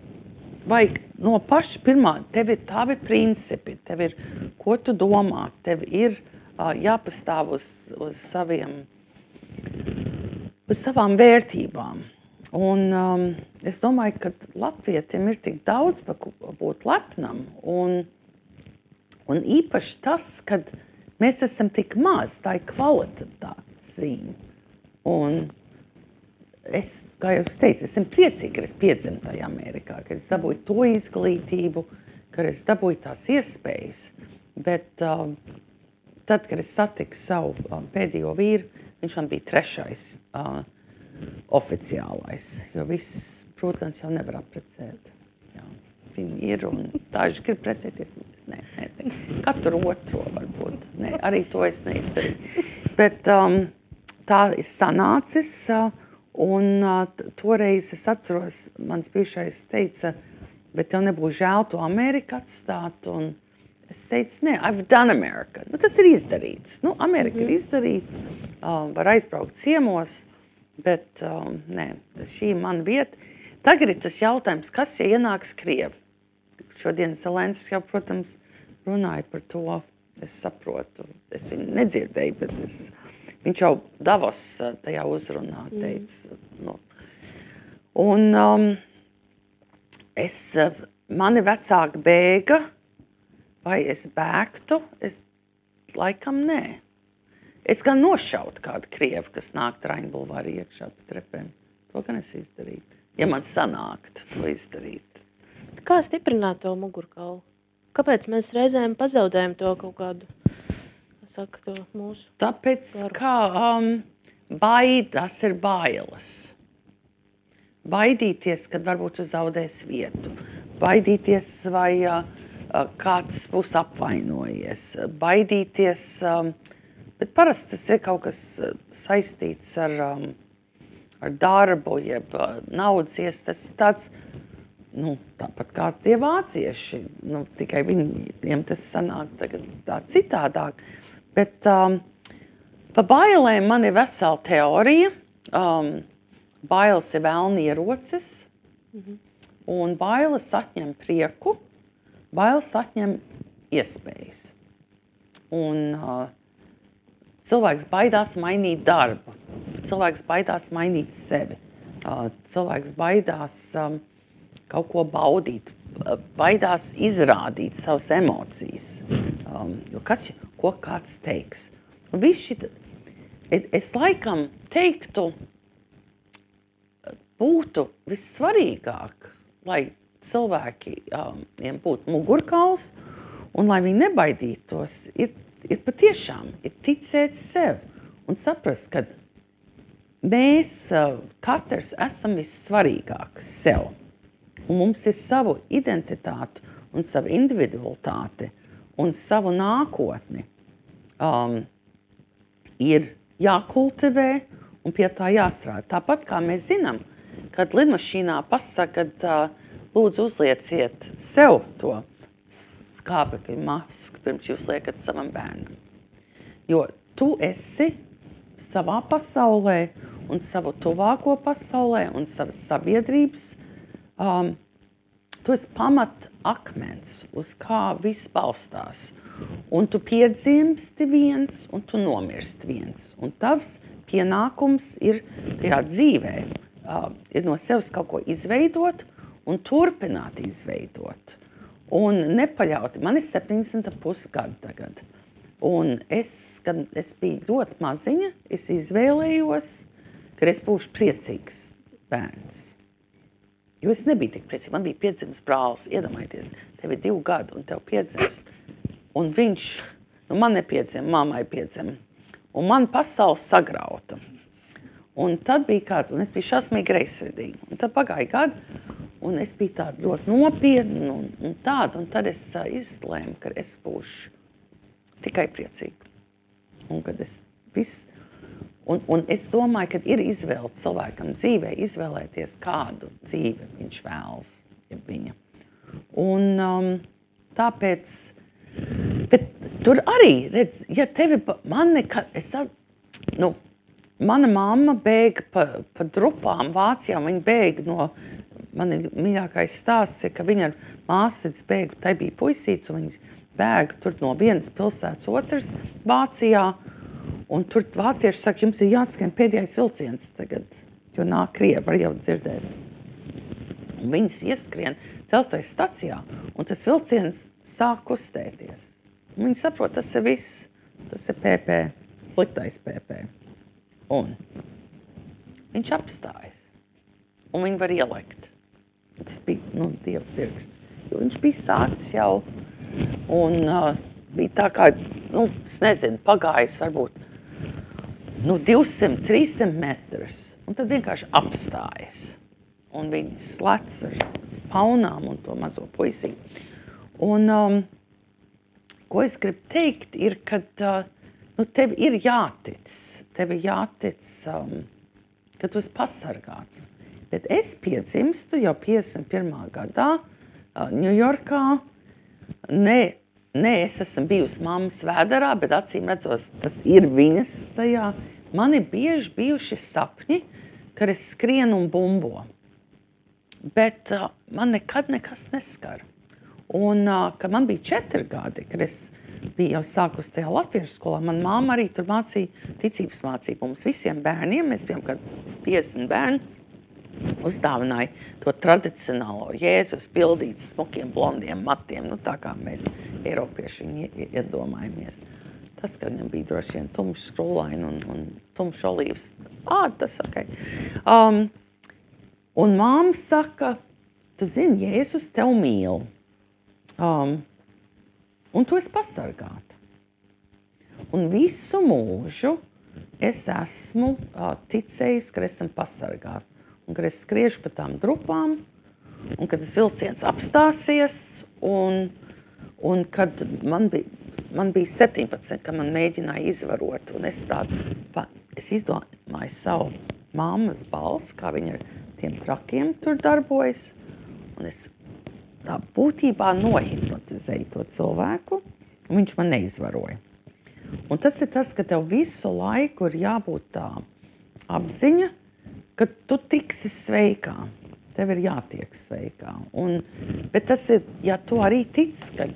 Vajag no paša pirmā, tev ir tavi principi, tev ir, ko tu domā, tev ir jāpastāv uz savām vērtībām. Un es domāju, ka latvietim ir tik daudz būt lepnam, un īpaši tas, kad mēs esam tik maz, tā ir kvalitātes zīme. Un es, kā jau es teicu, esmu priecīga, ka es piedzimu tajā Amerikā, ka es dabūju to izglītību, ka es dabūju tās iespējas. Bet tad, kad es satiku savu pēdējo vīru, viņš man bija 3. Oficiālais, jo viss, protams, jau nevar apprecēt. Jā, viņi ir un daži grib precēties. Nē, katru otro varbūt. Nē, arī to es neizdarīju. Bet tā ir sanācis. Un toreiz es atceros, mans bijušais teica, bet tev nebūs žēl to Ameriku atstāt. Un es teicu, nē, I've done America. Tas ir izdarīts. Amerika ir izdarīta, var aizbraukt ciemos, bet nē, šī ir mana vieta. Tagad ir tas jautājums, kas ja ienāks Krievi? Šodien Zelenskis jau, protams, runāja par to. Es saprotu, es viņu nedzirdēju, bet viņš jau Davos tajā uzrunā teica. Un mani vecāki bēga, vai es bēgtu? Es laikam nē. Es gan nošautu kādu Krievu, kas nāk Traņu bulvāri iekšā pa trepēm. To gan es izdarītu. Ja man sanāktu to izdarīt. Kā stiprināt to mugurkaulu? Kāpēc mēs reizēm pazaudējam to kaut kādu saka to mūsu? Tāpēc, ka baidās ir bailes. Baidīties, kad varbūt tu zaudēs vietu. Baidīties, vai kāds būs apvainojies. Baidīties, bet parasti tas ir kaut kas saistīts ar darbu, jeb naudas tas tāds, tāpat kā tie vācieši, tikai viņiem tas sanāk tagad tā citādāk. Bet pa bailēm man ir vesela teorija. Bailes ir velna ierocis, un bailes atņem prieku, bailes atņem iespējas. Un cilvēks baidās mainīt darbu, cilvēks baidās mainīt sevi, cilvēks baidās kaut ko baudīt, baidās izrādīt savas emocijas, jo ko kāds teiks. Es laikam teiktu, būtu vissvarīgāk, lai cilvēkiem būtu mugurkauls un lai viņi nebaidītos, ir patiešām ticēt sev un saprast, ka mēs katrs esam vissvarīgāk sev. Un mums ir savu identitāti un savu individualitāti un savu nākotni. Ir jākultivē un pie tā jāstrādā. Tāpat kā mēs zinām, kad lidmašīnā pasaka, kad lūdzu uzlieciet sev to skābekļa masku, pirms jūs liekat savam bērnam. Jo tu esi savā pasaulē un savu tuvāko pasaulē un savas sabiedrības, tu esi pamat akmens, uz kā viss balstās. Un tu piedzimsti viens, un tu nomirsti viens. Un tavs pienākums ir tajā dzīvē, ir no sevis kaut ko izveidot un turpināt izveidot. Un nepaļauti, man ir 70,5 gadi tagad. Un kad es biju ļoti maziņa, es izvēlējos, ka es būšu priecīgs bērns. Jo es nebiju tik priecīgs, man bija piedzimis brālis, iedomājieties, tev ir 2 gadi un tev piedzimst. Un viņš, man nepiedzima, mammai piedzima. Un man pasaule sagrauta. Un tad bija kāds, un es biju šausmīgi greizsirdīga. Un tad pagāja gadi, un es biju tāda ļoti nopietna un tāda. Un tad es izlēmu, ka es būšu tikai priecīga. Un kad es viss... Un es domāju, ka ir izvēle cilvēkam dzīvē izvēlēties, kādu dzīvi viņš vēlas, ja viņa. Un tāpēc... Bet tur arī, redz, ja tevi... Mana mamma bēga pa drupām Vācijā, viņa bēga no... Man ir mīļākais stāsts, ka viņa ar māsītes bēga, tai bija puisīts, un viņas bēga tur no vienas pilsētas otras Vācijā. Un tur vācieši saka, jums ir jāskrien pēdējais vilciens tagad, jo nāk Krievi, var jau dzirdēt. Un viņas ieskrien dzelzceļa stacijā, un tas vilciens sāk kustēties. Un viņi saprot, tas ir viss, tas ir PP, sliktais PP. Un viņš apstājas, un viņi var ielekt. Tas bija, Dieva pirksts, jo viņš bija sācis jau, un bija tā kā, es nezinu, pagājis varbūt 200, 300 metrus, un tad vienkārši apstājas. Un viņi slec ar paunām un to mazo puisi. Un, ko es gribu teikt, ir, ka tev ir jātic. Tev ir jātic, ka tu esi pasargāts. Bet es piedzimstu jau 51. gadā Ņujorkā. Ne, es esmu bijusi mammas vēderā, bet acīm redzos, tas ir viņas tajā. Man ir bieži bijuši sapņi, kad es skrienu un bumbo. Bet man nekad nekas neskar. Un, kad man bija 4 gadi, kad es biju jau sākus tajā latviešu skolā, man mamma arī tur mācīja ticības mācību. Mums visiem bērniem, mēs bijām kad 50 bērni, uzdāvināja to tradicionālo Jēzus pildīts smukiem blondiem matiem, tā kā mēs Eiropieši viņu iedomājamies. Tas, ka viņam bija droši vien tumšs skrūlaini un tumšs olīvs, tas ok. Un māma saka, tu zini, Jēzus tev mīl. Un tu esi pasargāta. Un visu mūžu es esmu ticējis, ka esam pasargāti. Un kad es skriešu pa tām drupām, un kad tas vilciens apstāsies, un kad man bija 17, kad man mēģināja izvarot, un es izdomāju savu mammas balsi, kā viņa ar tiem trakiem tur darbojas, un es tā būtībā nohipnotizēju to cilvēku, un viņš man neizvaroja. Un tas ir tas, ka tev visu laiku ir jābūt tā apziņa, ka tu tiksi sveikā. Tev ir jātiek sveikā. Bet tas ir, ja tu arī tic, kad,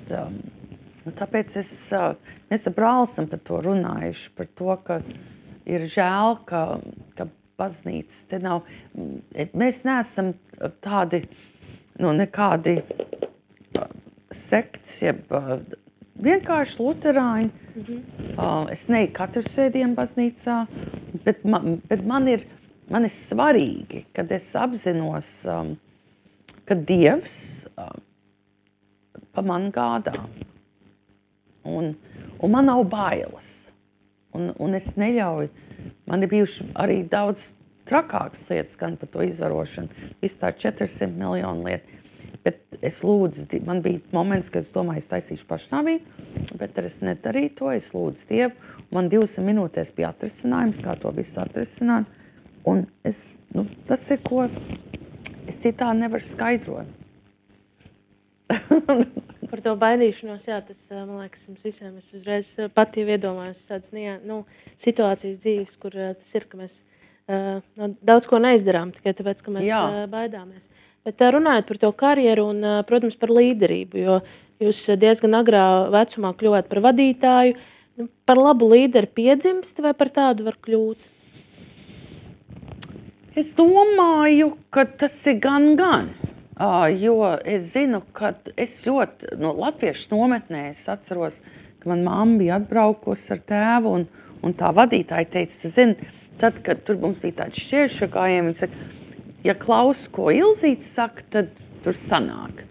tāpēc mēs ar brāli esam par to runājuši, par to, ka ir žēl, ka baznīcas te nav. Mēs neesam tādi, nekādi sekts, jeb vienkārši luterāņi. Es neju katru svētdienu baznīcā, bet man ir svarīgi, kad es apzinos, ka Dievs pa man gādā. Un man nav bailes. Un es neļauju, man ir bijuši arī daudz trakākas lietas, gan par to izvarošanu, viss tā 400 miljonu lietu. Bet es lūdzu, man bija moments, kad es domāju, es taisīšu pašnāvību, bet es nedarīju to, es lūdzu Dievu. Man 2 minūtēs bija atrisinājums, kā to visu atrisināt. Un tas ir, ko es citā nevaru skaidrot. Par to baidīšanos, jā, tas, man liekas, mums visiem es uzreiz pat jau iedomājos tādas situācijas dzīves, kur tas ir, ka mēs daudz ko neizdarām, tikai tāpēc, ka mēs baidāmies. Bet runājot par to karjeru un, protams, par līderību, jo jūs diezgan agrā vecumā kļuvāt par vadītāju. Par labu līderi piedzimst vai par tādu var kļūt? Es domāju, ka tas ir gan. Jo es zinu, ka es ļoti no latviešu nometnē es atceros, ka man mamma bija atbraukusi ar tēvu un tā vadītāja teica, tu zini, tad, kad tur mums bija tāds šķēršagājiem, viņa saka, ja klaus, ko Ilzīte saka, tad tur sanāk.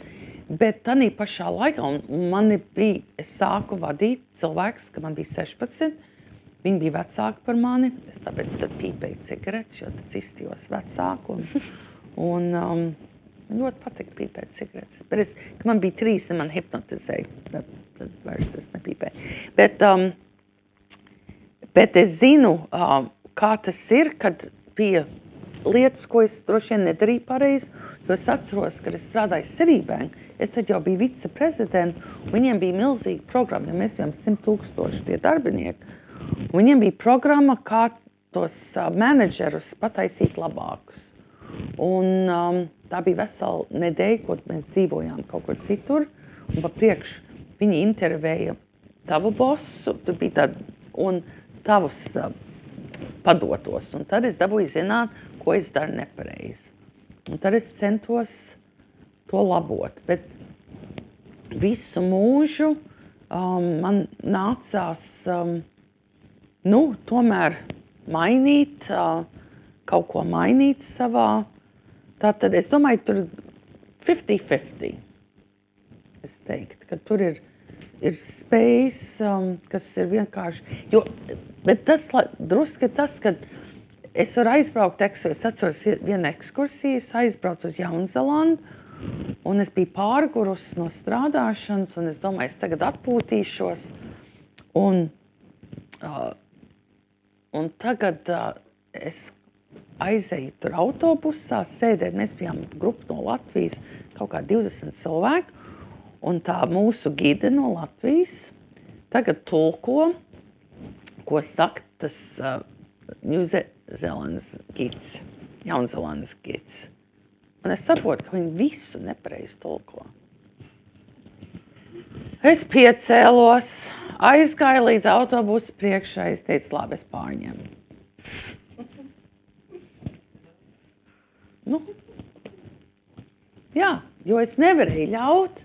Bet tanī pašā laikā, un es sāku vadīt cilvēks, ka man bija 16, viņi bija vecāki par mani, es tāpēc tad pīpēju cigaretes, jo tad izstījos vecāku, un ļoti patika pīpēt cigaretes. Bet kad man bija 3, un man hipnotizēja, tad vairs es nepīpēju. Bet es zinu, kā tas ir, kad bija lietas, ko es droši vien nedarīju pareizi, jo es atceros, kad es strādāju Sirībēn, es tad jau biju viceprezidenta, un viņiem bija milzīga programma, jo mēs bijām 100,000 tie darbinieki, un viņiem bija programma, kā tos menedžerus pataisīt labākus. Un tā bija vesela nedēļa, ko mēs dzīvojām kaut kur citur, un pa priekšu viņi intervēja tavu bosu, tur bija tāda, un tavus padotos, un tad es dabūju zināt, ko es daru nepareizi. Un tad es centos to labot, bet visu mūžu man nācās tomēr mainīt, kaut ko mainīt savā. Tātad es domāju, tur 50-50. Es teiktu, ka tur ir spējas, kas ir vienkārši. Bet tas druski ir tas, ka es varu aizbraukt, es atceros vienu ekskursiju, es aizbraucu uz Jaunzelandu, un es biju pārgurus no strādāšanas, un es domāju, es tagad atpūtīšos, un tagad es aizēju tur autobusā, sēdēt, mēs bijām grupa no Latvijas, kaut kā 20 cilvēku, un tā mūsu gide no Latvijas tagad tulko, ko saka tas Jaunzelandes gids. Un es saprotu, ka viņi visu nepareizi tulko. Es piecēlos, aizgāju līdz autobusu priekšā, es teicu, labi, es pārņemu. Jā, jo es nevarēju ļaut,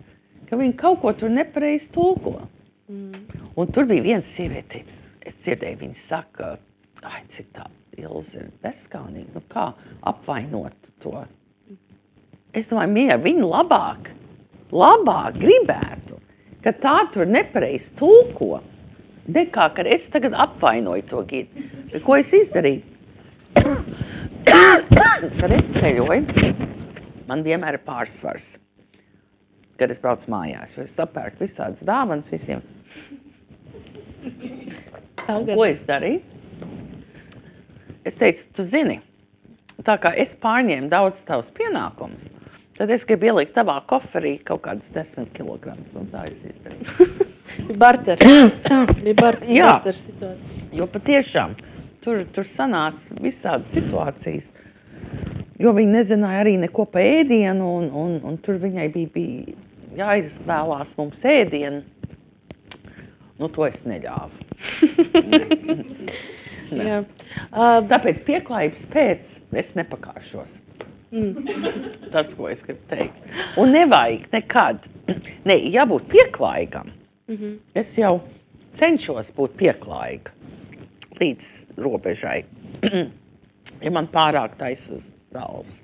ka viņi kaut ko tur nepareizi tulko. Un tur bija viena sieviete, es dzirdēju, viņa saka, cik tā Ilze ir bezskaunīga, kā apvainot to. Es domāju, mīļā, viņa labāk gribētu, ka tā tur nepareizi tulko, Dekā, kad es tagad apvainoju to Gidu. Ko es izdarīju? Kad es ceļoju, man vienmēr ir pārsvars, kad es braucu mājās, jo es sapērku visādas dāvanas visiem. Ko es darīju? Es teicu, tu zini, tā kā es pārņēmu daudz tavus pienākumus, tad es gribu ielikt tavā koferī kaut kādas 10 kilogramus, un tā es izdarīju. Barters. Bija barters situācija. Jo patiešām tur sanāca visādas situācijas, jo viņi nezināja arī neko pa ēdienu, un tur viņai bija jāizvēlās mums ēdienu. Nu, to es neļāvu. Jā. Tāpēc pieklājības pēc es nepakāšos. Tas, ko es gribu teikt. Un nevajag nekad. Ne, jābūt pieklājīgam. Es jau cenšos būt pieklājīga līdz robežai. Ja man pārāk tais uz galvas.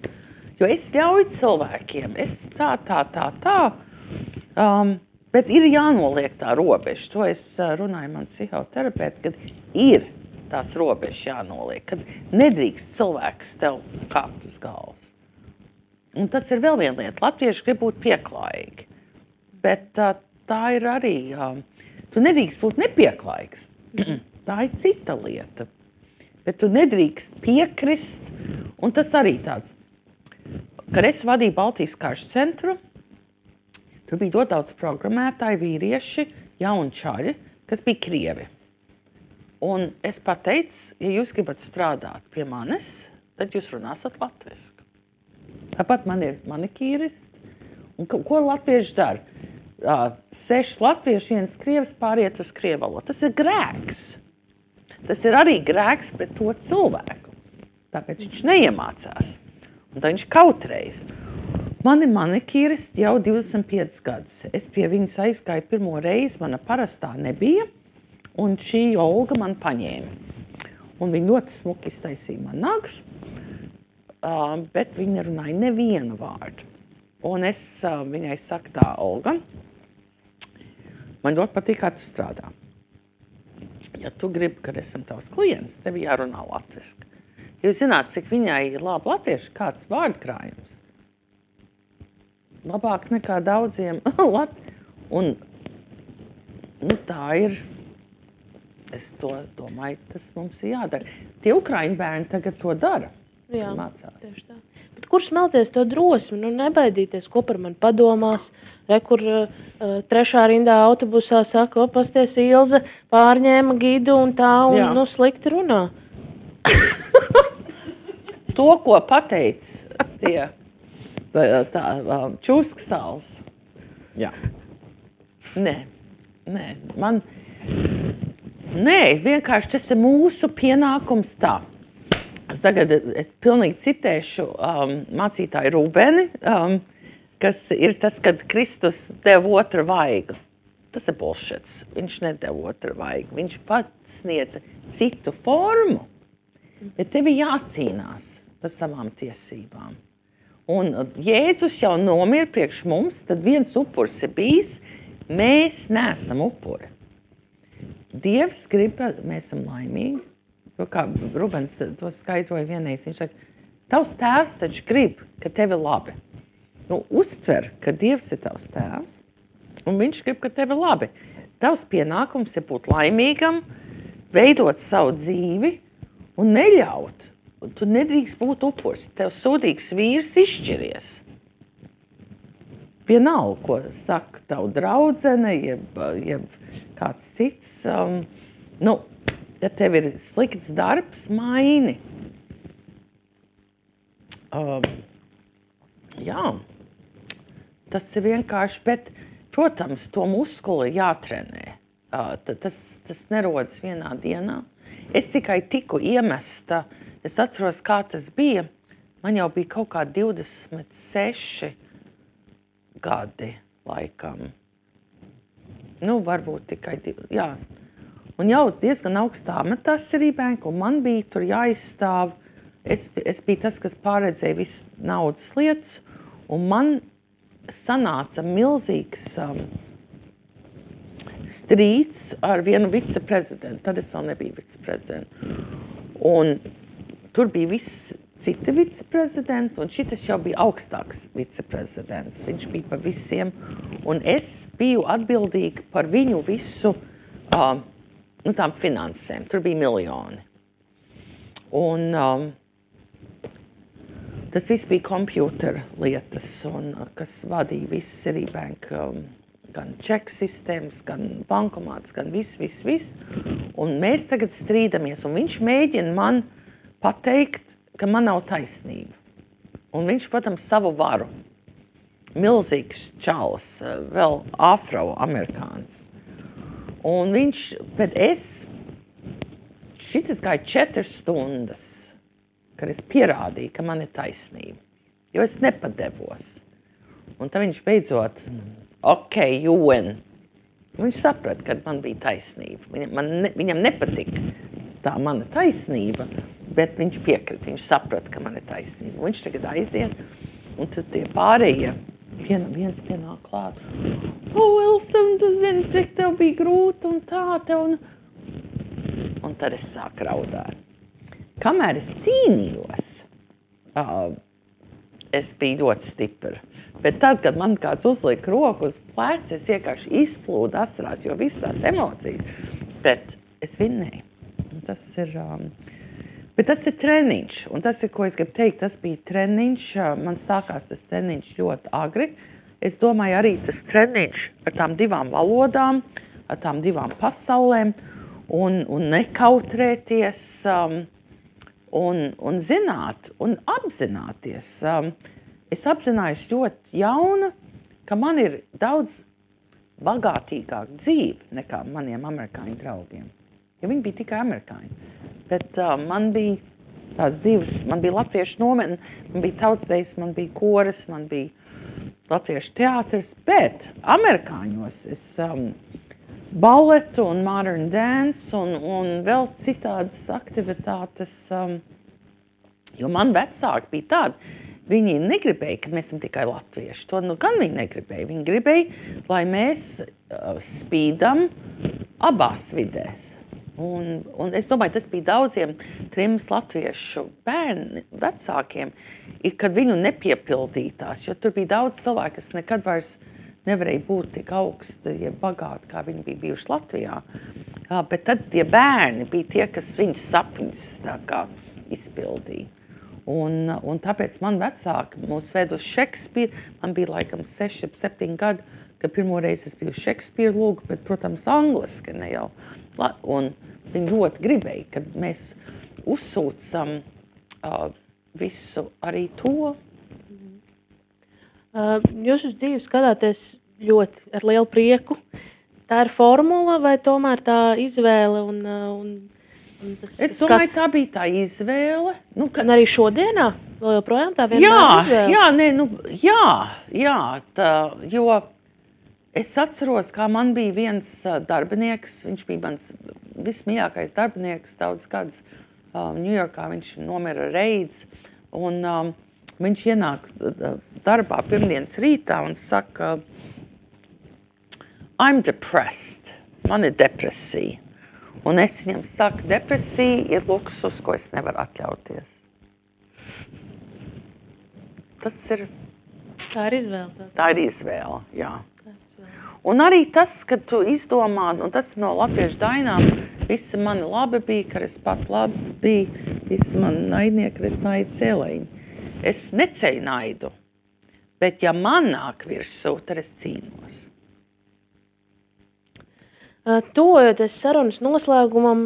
Jo es ļauju cilvēkiem. Es tā. Bet ir jānoliek tā robeža. To es runāju man psihoterapeiti, kad ir tās robežas jānoliek. Kad nedrīkst cilvēks tev kāpt uz galvas. Un tas ir vēl viena lieta. Latvieši grib būt pieklājīgi. Bet tā ir arī... Tu nedrīkst būt nepieklājīgs. Tā ir cita lieta. Bet tu nedrīkst piekrist. Un tas arī tāds... Kad es vadīju Baltijas karšu centru, tur bija ļoti daudz programmētāji, vīrieši, jauni čaļi, kas bija krievi. Un es pateicu, ja jūs gribat strādāt pie manis, tad jūs runāsat latviski. Tāpat man ir manikīristi. Un ko latvieši dara? 6 latvieši, 1 krievs pāriet uz krievu valodu. Tas ir grēks. Tas ir arī grēks pret to cilvēku. Tāpēc viņš neiemācās. Un tā viņš kautreiz. Mani manikīristi jau 25 gadus. Es pie viņas aizgāju pirmo reizi, mana parastā nebija, un šī Olga man paņēma. Un viņa ļoti smuki iztaisīja man nagus, bet viņa nerunāja nevienu vārdu. Un es viņai saku tā, Olga, man ļoti patīk, kā tu strādā. Ja tu gribi, kad esam tavs klients, tev jārunā latviski. Jūs zināt, cik viņai ir labi latvieši, kāds vārdkrājums. Labāk nekā daudziem Un tā ir, es to domāju, tas mums ir jādara. Tie ukraiņu bērni tagad to dara. Jā, mācās. Tieši tā. Bet kur smelties to drosmi? Nu, nebaidīties, ko par mani padomās. Kur 3. rindā autobusā saka, pasties Ilze pārņēma Gidu un tā, un nu, slikti runā. To, ko pateic tie čūsksāls. Jā. Nē, vienkārši tas ir mūsu pienākums tā. Es pilnīgi citēšu mācītāju Rūbeni, kas ir tas, kad Kristus deva otru vaigu. Tas ir bullshits. Viņš nedeva otru vaigu. Viņš pats sniedza citu formu, bet tev ir jācīnās par savām tiesībām. Un Jēzus jau nomira priekš mums, tad viens upurs ir bijis, mēs neesam upuri. Dievs grib, mēs esam laimīgi. Jo kā Rubens to skaidroja vienreiz, viņš saka, tavs tēvs taču grib, ka tev ir labi. Nu, uztver, ka Dievs ir tavs tēvs, un viņš grib, ka tev ir labi. Tavs pienākums ir būt laimīgam, veidot savu dzīvi un neļaut. Un tu nedrīkst būt upurs. Tev sūdīgs vīrs izšķiries. Vienalga, ko saka tavu draudzene, jeb kāds cits. Ja tev ir slikts darbs, maini. Jā, tas ir vienkārši, bet, protams, to muskuli jātrenē. Tas nerodas vienā dienā. Es tikai tiku iemesta. Es atceros, kā tas bija. Man jau bija kaut kā 26 gadi laikam. Nu, varbūt tikai jā. Un jau diezgan augstā amatā cerībēnku, un man bija tur jāizstāv. Es biju tas, kas pārredzēja visas naudas lietas, un man sanāca milzīgs strīds ar vienu viceprezidentu. Tad es vēl nebiju viceprezidents. Un tur bija viss citi viceprezidenti, un šitas jau bija augstāks viceprezidents. Viņš bija par visiem, un es biju atbildīga par viņu visu tām finansēm. Tur bija miljoni. Un tas viss bija kompjūtera lietas, un kas vadīja visu Citibank, gan čeku sistēmas, gan bankomāts, gan viss. Un mēs tagad strīdamies, un viņš mēģina man pateikt, ka man nav taisnība. Un viņš, protams, savu varu. Milzīgs čalis, vēl afroamerikāns. Un viņš, bet šitas gāja 4 stundas, kad es pierādīju, ka man ir taisnība. Jo es nepadevos. Un tad viņš beidzot, you win. Viņš saprata, ka man bija taisnība. Viņam nepatika tā mana taisnība, bet viņš piekrita, viņš saprata, ka man ir taisnība. Un viņš tagad aiziet, un tad tie pārējie, viens pienāk klāt. Wilson, tu zini, cik tev bija grūti un tā tev. Un tad es sāku raudāt. Kamēr es cīnījos, es biju ļoti stipra. Bet tad, kad man kāds uzlika roku uz pleca, es vienkārši izplūdu asarās, jo viss tās emocijas. Bet es vinnēju. Bet tas ir treniņš, un tas ir, ko es gribu teikt, tas bija treniņš, man sākās tas treniņš ļoti agri. Es domāju arī tas treniņš ar tām 2 valodām, ar tām 2 pasaulēm, un nekautrēties, un zināt, un apzināties. Es apzinājos ļoti jauna, ka man ir daudz bagātīgāka dzīve nekā maniem amerikāņu draugiem. Jo viņi bija tikai amerikāņi. Bet man bija tās 2, man bija latviešu nometne, man bija tautsdejas, man bija koras, man bija latviešu teātris, bet amerikāņos es baletu un modern dance un vēl citādas aktivitātes, jo man vecāki bija tādi, viņi negribēja, ka mēs esam tikai latvieši. To gan viņi negribēja. Viņi gribēja, lai mēs spīdam abās vidēs. Un es domāju, tas bija daudziem trims latviešu bērni, vecākiem, kad viņu nepiepildītās, jo tur bija daudz cilvēku, kas nekad vairs nevarēja būt tik augsti, ja bagāti, kā viņi bija bijuši Latvijā. Bet tad tie bērni bija tie, kas viņas sapņus tā kā izpildīja. Un tāpēc man vecāki mūs ved uz Šekspīru. Man bija laikam 6, 7 gadi, kad pirmoreiz es biju Šekspīra lūgu, bet, protams, angliski ne jau. Un viņi ļoti gribēja, kad mēs uzsūcam visu arī to. Jūs uz dzīvi skatāties ļoti ar lielu prieku. Tā ir formula vai tomēr tā izvēle un tas es domāju, skats? Tā bija tā izvēle. Un arī šodienā vēl joprojām tā vienmēr izvēle? Jo es atceros, kā man bija viens darbinieks, viņš bija mans vismīļākais darbinieks daudz gadus Ņujorkā, viņš nomira reiz, un viņš ienāk darbā pirmdienas rītā un saka, I'm depressed, man ir depresija. Un es viņam saku, depresija ir luksus, ko es nevaru atļauties. Tas ir... Tā ir izvēle. Tā ir izvēle, jā. Un arī tas, kad tu izdomā, un tas no latviešu dainām, visi mani labi bija, ka es pat labi biju, visi mani naidnieki, es naidu cēlēņi. Es neceļu naidu, bet ja man nāk virsū, tad es cīnos. Tuvojoties sarunas noslēgumam,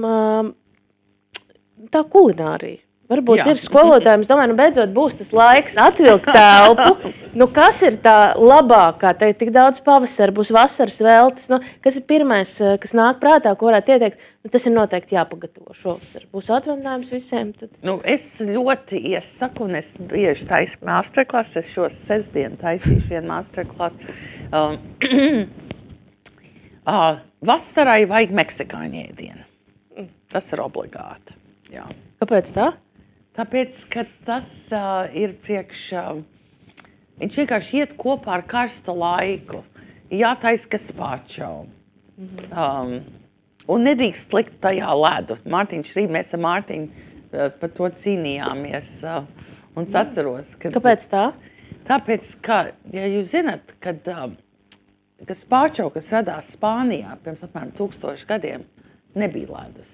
tā kulinārija. Varbūt ir skolotājiem, es domāju, beidzot būs tas laiks atvilkt telpu. Kas ir tā labākā? Te tik daudz pavasara, būs vasaras veltes. Kas ir pirmais, kas nāk prātā, ko varētu ieteikt? Tas ir noteikti jāpagatavo šovasar. Būs atvaļinājums visiem? Tad... Es ļoti iesaku, un es bieži taisu masterclass. Es šo sestdienu taisīšu vienu masterclass. Vasarai vajag meksikāņu ēdienu. Tas ir obligāti. Jā. Kāpēc tā? Tāpēc, ka tas ir viņš vienkārši iet kopā ar karstu laiku. Jātaisa gazpacho, Un nedrīkst likt tajā ledu. Mārtiņš rīt, mēs ar Mārtiņu par to cīnījāmies. Un es atceros, ka... Kāpēc tā? Tāpēc, ka, ja jūs zināt, kad spāčau, kas radās Spānijā pirms apmēram 1000 gadiem, nebija ledus.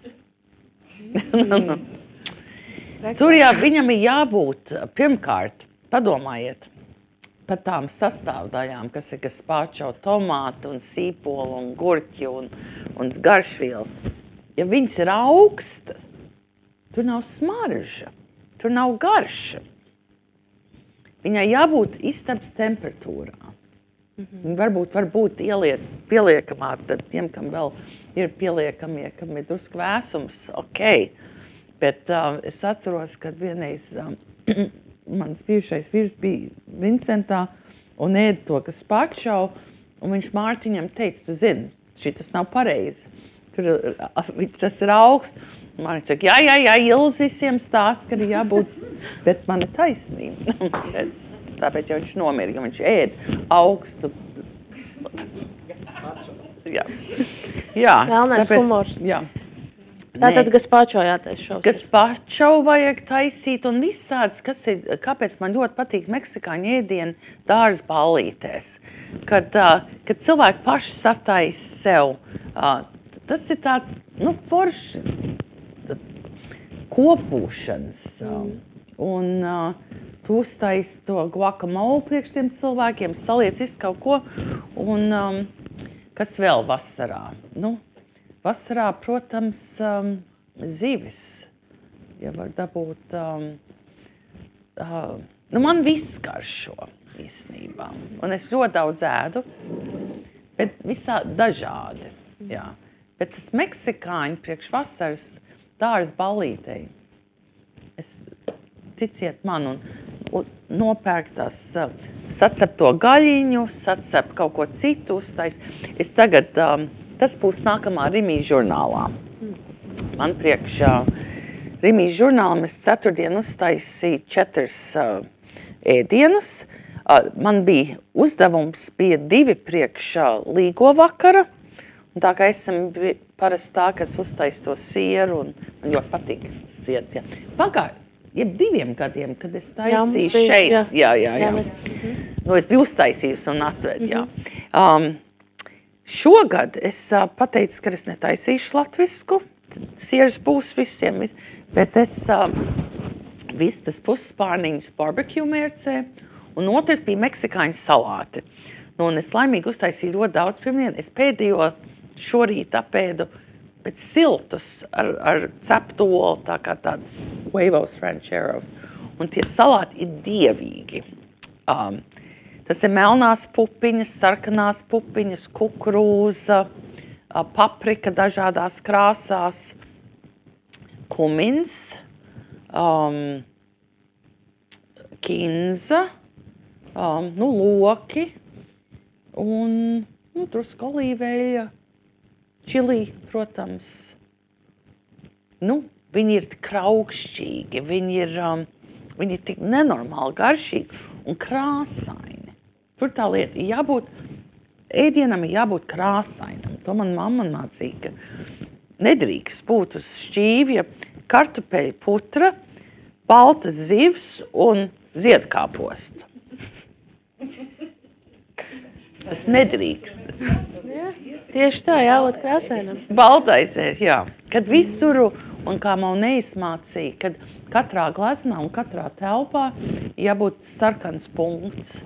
Tur viņam ir jābūt, pirmkārt, padomājiet par tām sastāvdaļām, kas ir spāčau, tomāti un sīpoli un gurķi un garšvielas. Ja viņas ir augsta, tur nav smarža, tur nav garša. Viņai jābūt istabas temperatūrā. Varbūt pieliekamā, tad tiem, kam vēl ir pieliekamie, kam ir drusku vēsums, ok. Bet es atceros, kad vienreiz mans bijušais vīrs bija Vincentā un ēda to, kas pačau, un viņš Mārtiņam teica, tu zini, šitas nav pareizi. Tas ir augsts. Mārtiņš saka, jā, Ilz visiem stāst, ka ir jābūt, bet man ir taisnība. Tāpēc jau viņš nomira, ka viņš ēd augstu. Jā. Vēlnais humors. Jā. Tātad gazpacho jātais šovs. Gazpacho vajag taisīt un visāds, kāpēc man ļoti patīk meksikāņu ēdieni dārza ballītēs. Kad cilvēki paši sataisa sev, tas ir tāds, foršs kopūšanas. Un tu uztaisi to guacamole priekš tiem cilvēkiem, saliec visu kaut ko. Un kas vēl vasarā? Vasarā, protams, zivis, ja var dabūt, man viss garšo īstenībā, un es ļoti daudz ēdu, bet visā dažādi, jā. Bet tas meksikāņu priekš vasaras dārza ballītei, ticiet man, un nopērk tās, sacep to gaļiņu, sacep kaut ko citu uztais. Es tagad... Tas būs nākamā Rimijas žurnālā. Man priekšā Rimijas žurnālam es ceturtdien uztaisīju 4 ēdienus. Man bija uzdevums, bija 2 priekšā līgo vakara. Un tā kā esam parasti tā, ka es uztaisu to sieru, un man ļoti patīk siet. Jeb 2 gadiem, kad es taisīju šeit. Jā. Es biju uztaisījusi un atved, jā. Šogad es pateicu, ka es netaisīšu latvisku, sieras būs visiem, bet es vistas puspārniņus barbecue mērcē, un otrs bija meksikāņu salāti. Un es laimīgi uztaisīju ļoti daudz pirmdien. Es pēdējo šorīt apēdu, bet siltus ar ceptu olu, tā kā tādi huevos rancheros. Un tie salāti ir dievīgi. Tas ir melnās pupiņas, sarkanās pupiņas, kukurūza, paprika dažādās krāsās, kumins, kinza, loki un drusku olīveļa, čili, protams. Viņi ir tik kraukšķīgi, viņi ir tik nenormāli garšīgi un krāsaini. Tur tā lieta ēdienam ir jābūt krāsainam. To man mamma mācīja, ka nedrīkst būt uz šķīvja kartupeļu putra, baltas zivs un ziedkāposta. Tas nedrīkst. Tieši tā, jābūt krāsainam. Baltais, jā. Kad visuru, un kā man neizmācīja, kad katrā gleznā un katrā telpā jābūt sarkans punkts.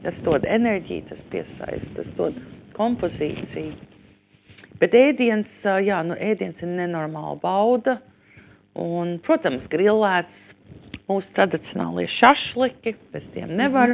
Tas dod enerģiju, tas piesaista, tas dod kompozīciju. Bet ēdiens ir nenormāla bauda. Un, protams, grillēts mūsu tradicionālie šašliki, bez tiem nevar.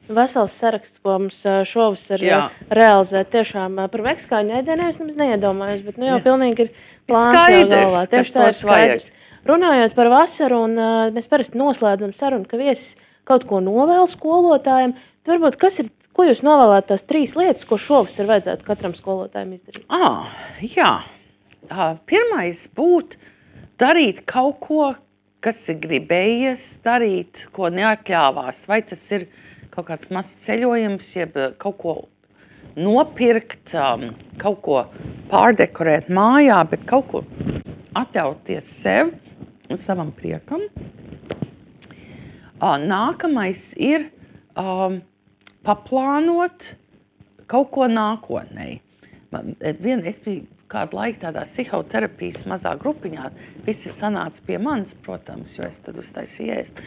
Vesels saraksts, ko mums šovasar realizēt tiešām par meksikāņu ēdieniem, es nemaz neiedomājos, bet jau pilnīgi ir plāns jau galvā. Tieši tā ir skaidrs. Runājot par vasaru, un mēs parasti noslēdzam sarunu, ka viesis kaut ko novēl skolotājiem. Tad varbūt, ko jūs novēlētu tās 3 lietas, ko šovasar vajadzētu katram skolotājiem izdarīt? Jā. Pirmais būtu darīt kaut ko, kas ir gribējies darīt, ko neatļāvās. Vai tas ir kaut kāds mazs ceļojums, jeb kaut ko nopirkt, kaut ko pārdekorēt mājā, bet kaut ko atļauties sev un savam priekam. Nākamais ir paplānot kaut ko nākotnē. Es biju kādu laiku tādā psihoterapijas mazā grupiņā. Visi sanāca pie manis, protams, jo es tad uztaisīju ēst.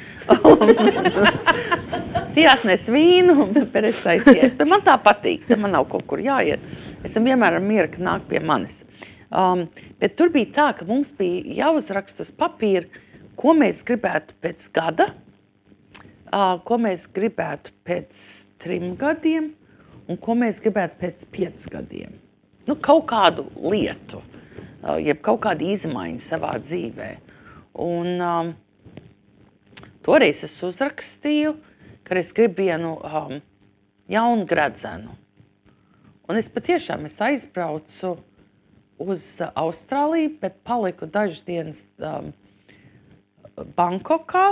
Tie atnes vīnu, bet es taisīju ēst. Bet man tā patīk, tad man nav kaut kur jāiet. Esam vienmēr ar mieru, ka nāk pie manis. Bet tur bija tā, ka mums bija jāuzrakst uz papīra, ko mēs gribētu pēc gada, ko mēs gribētu pēc 3 gadiem un ko mēs gribētu pēc 5 gadiem. Nu, kaut kādu lietu, jeb kaut kādu izmaiņu savā dzīvē. Un toreiz es uzrakstīju, ka es gribu vienu jaunu gredzenu. Un es patiešām aizbraucu uz Austrāliju, bet paliku dažas dienas Bankokā,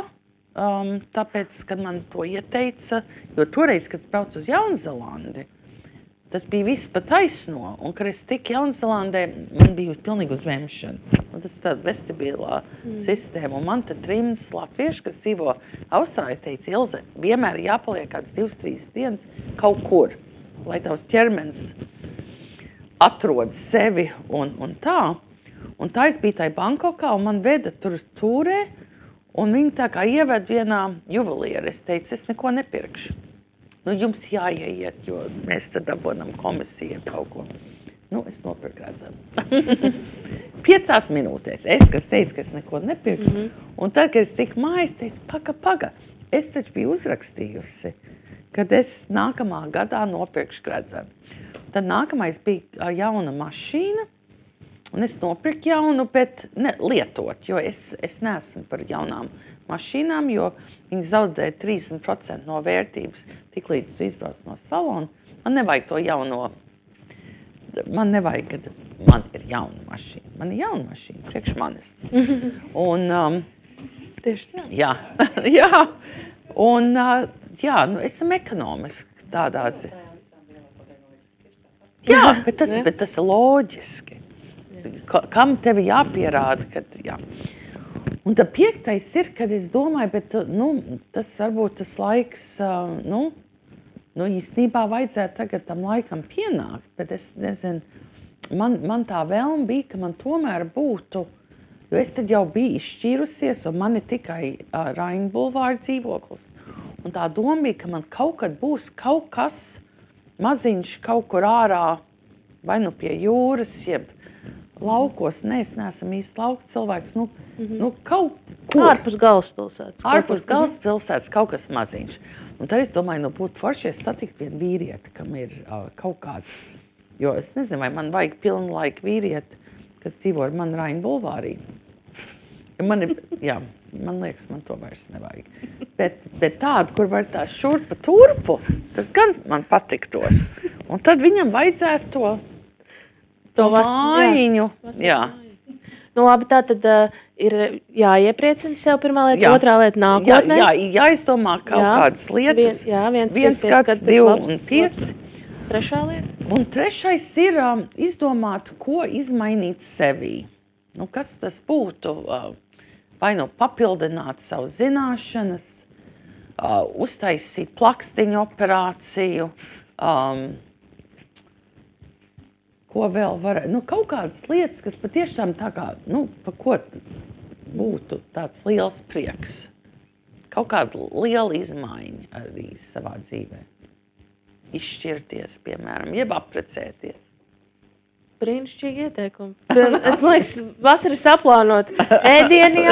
tāpēc, kad man to ieteica, jo toreiz, kad es braucu uz Jaunzelandi, tas bija viss pa taisno, un kad es tiku Jaunzelandē, man bija pilnīgi uzvemšana. Un tas ir tāda vestibilā sistēma, un man te 3 latvieši, kas dzīvo Austrālijā, teica, Ilze, vienmēr jāpaliek kāds 2-3 dienas kaut kur, lai tavs ķermenis atrod sevi un tā. Un tā es biju tai Bankokā, un man veda tur tūrē, un viņi tā kā ieved vienā juveliera. Es teicu, es neko nepirkšu. Nu, jums jāieiet, jo mēs tad dabonam komisiju kaut ko. Nu, es nopirku gredzenu. 5 minūtēs. Kas teica, ka es neko nepirkšu. Un tad, kad es tiku mājās, teicu, paga. Es taču biju uzrakstījusi, kad es nākamā gadā nopirkšu gredzenu. Tad nākamais bija jauna mašīna, un es nopirku jaunu, bet lietot, jo es neesmu par jaunām mašīnām, jo viņi zaudē 30% no vērtības, tik līdz tu izbrauc no salona. Man nevajag to jauno, man nevajag, kad man ir jauna mašīna. Man ir jauna mašīna, priekš manis. Un, Tieši tā. Jā, jā. Un, jā, nu, esam ekonomiski tādā ziņā. Jā, bet tas ir loģiski. Kam tevi jāpierāda, kad jā. Un tad 5. ir, kad es domāju, bet, tas varbūt tas laiks, īstenībā vajadzētu tagad tam laikam pienākt, bet es nezinu, man tā vēlme bija, ka man tomēr būtu, jo es tad jau biju izšķīrusies, un man ir tikai Raina bulvāra dzīvoklis. Un tā doma bija, ka man kaut kad būs kaut kas maziņš kaut kur ārā, vai nu pie jūras, jeb laukos. Nē, es neesam īsti lauku cilvēks. Kaut kur. Ārpus galvaspilsētas. Ārpus galvaspilsētas kaut kas maziņš. Un tad es domāju, būtu forši, es satikt vienu vīrieti, kam ir kaut kāds. Jo es nezinu, vai man vajag pilnu laiku vīrieti, kas dzīvo ar mani Raina bulvārī. Man liekas, man to vairs nevajag. Bet tādu, kur var tā šurpa turpu, tas gan man patiktos. Un tad viņam vajadzētu to mājiņu. Jā. Nu labi, tā tad ir jāiepriecina sev pirmā lieta, otrā lieta nākotnē. Jāizdomā kaut kādas lietas. Viens gads, 2 un 5. Trešā lieta. Un 3. ir izdomāt, ko izmainīt sevī. Kas tas būtu? Vai papildināt savu zināšanas, uztaisīt plakstiņu operāciju, ko vēl var, kaut kādas lietas, kas patiešām tā kā, pa ko būtu tāds liels prieks. Kaut kāda liela izmaiņa arī savā dzīvē. Izšķirties, piemēram, jeb apprecēties. Brīnišķīgi ieteikumi. Man liekas, vasara saplānot ēdienu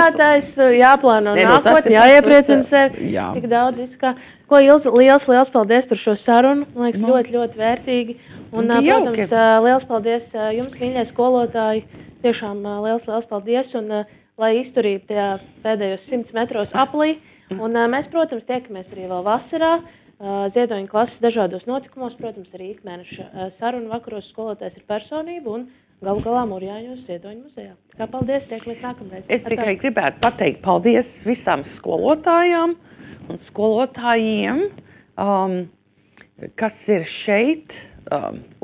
jāplāno nākotni, jāiepriecina sevi. Jā. Tik daudz viskā. Ko Ilze, liels paldies par šo sarunu. Man liekas, ļoti vērtīgi. Un, protams, liels paldies jums, mīļie skolotāji. Tiešām liels paldies. Un, lai izturību tajā pēdējos 100 metros aplī. Un mēs, protams, tiekamies arī vēl vasarā. Ziedoņa klases dažādos notikumos, protams, arī ikmēneša sarunu vakaros skolotājs ir personība un galu galā Mūrjāņos Ziedoņa muzejā. Kā paldies, tiekamies nākamreiz. Es tikai gribētu pateikt paldies visām skolotājām un skolotājiem, kas ir šeit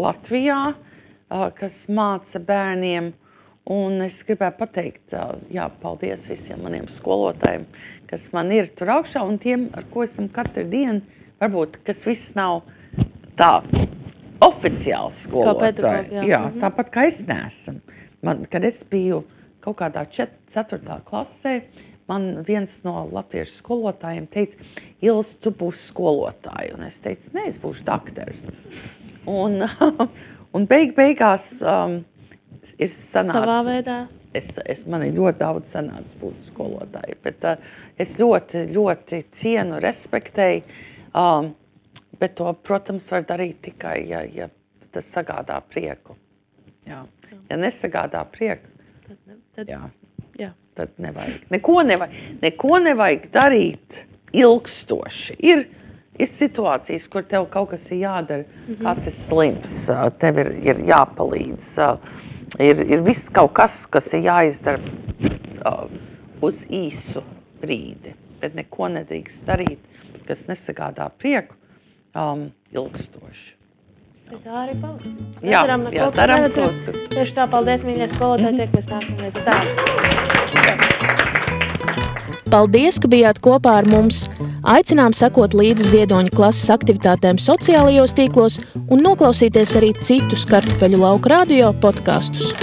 Latvijā, kas māca bērniem. Un es gribēju pateikt, paldies visiem maniem skolotājiem, kas man ir tur augšā, un tiem, ar ko esam katru dienu, varbūt, kas viss nav tā oficiāls skolotāji. Jā, tāpat kā es neesam. Kad es biju kaut kādā 4. klasē, man viens no latviešu skolotājiem teica, Ils, tu būsi skolotāji. Un es teicu, ne, es būšu dakteris. Un beigās ir sanāca. Savā veidā. Man ir ļoti daudz sanāca būt skolotāji, bet es ļoti, ļoti cienu, respektēju, bet to, protams, var darīt tikai, ja tas sagādā prieku. Jā. Ja nesagādā prieku, tad nevajag. Neko nevajag darīt ilgstoši. Ir situācijas, kur tev kaut kas ir jādara, kāds ir slims, tev ir jāpalīdz, ir viss kaut kas ir jāizdara uz īsu brīdi, bet neko nedrīkst darīt, kas nesagādā prieku ilgstoši. Bet tā arī paliks. Daram tos, kas... Tieši tā, paldies, mīļie skolotāji, tiekamies nākamreiz. Paldies, ka bijāt kopā ar mums. Aicinām sekot līdzi Ziedoņa klases aktivitātēm sociālajos tīklos un noklausīties arī citus Kartupeļu lauku radio podkastus.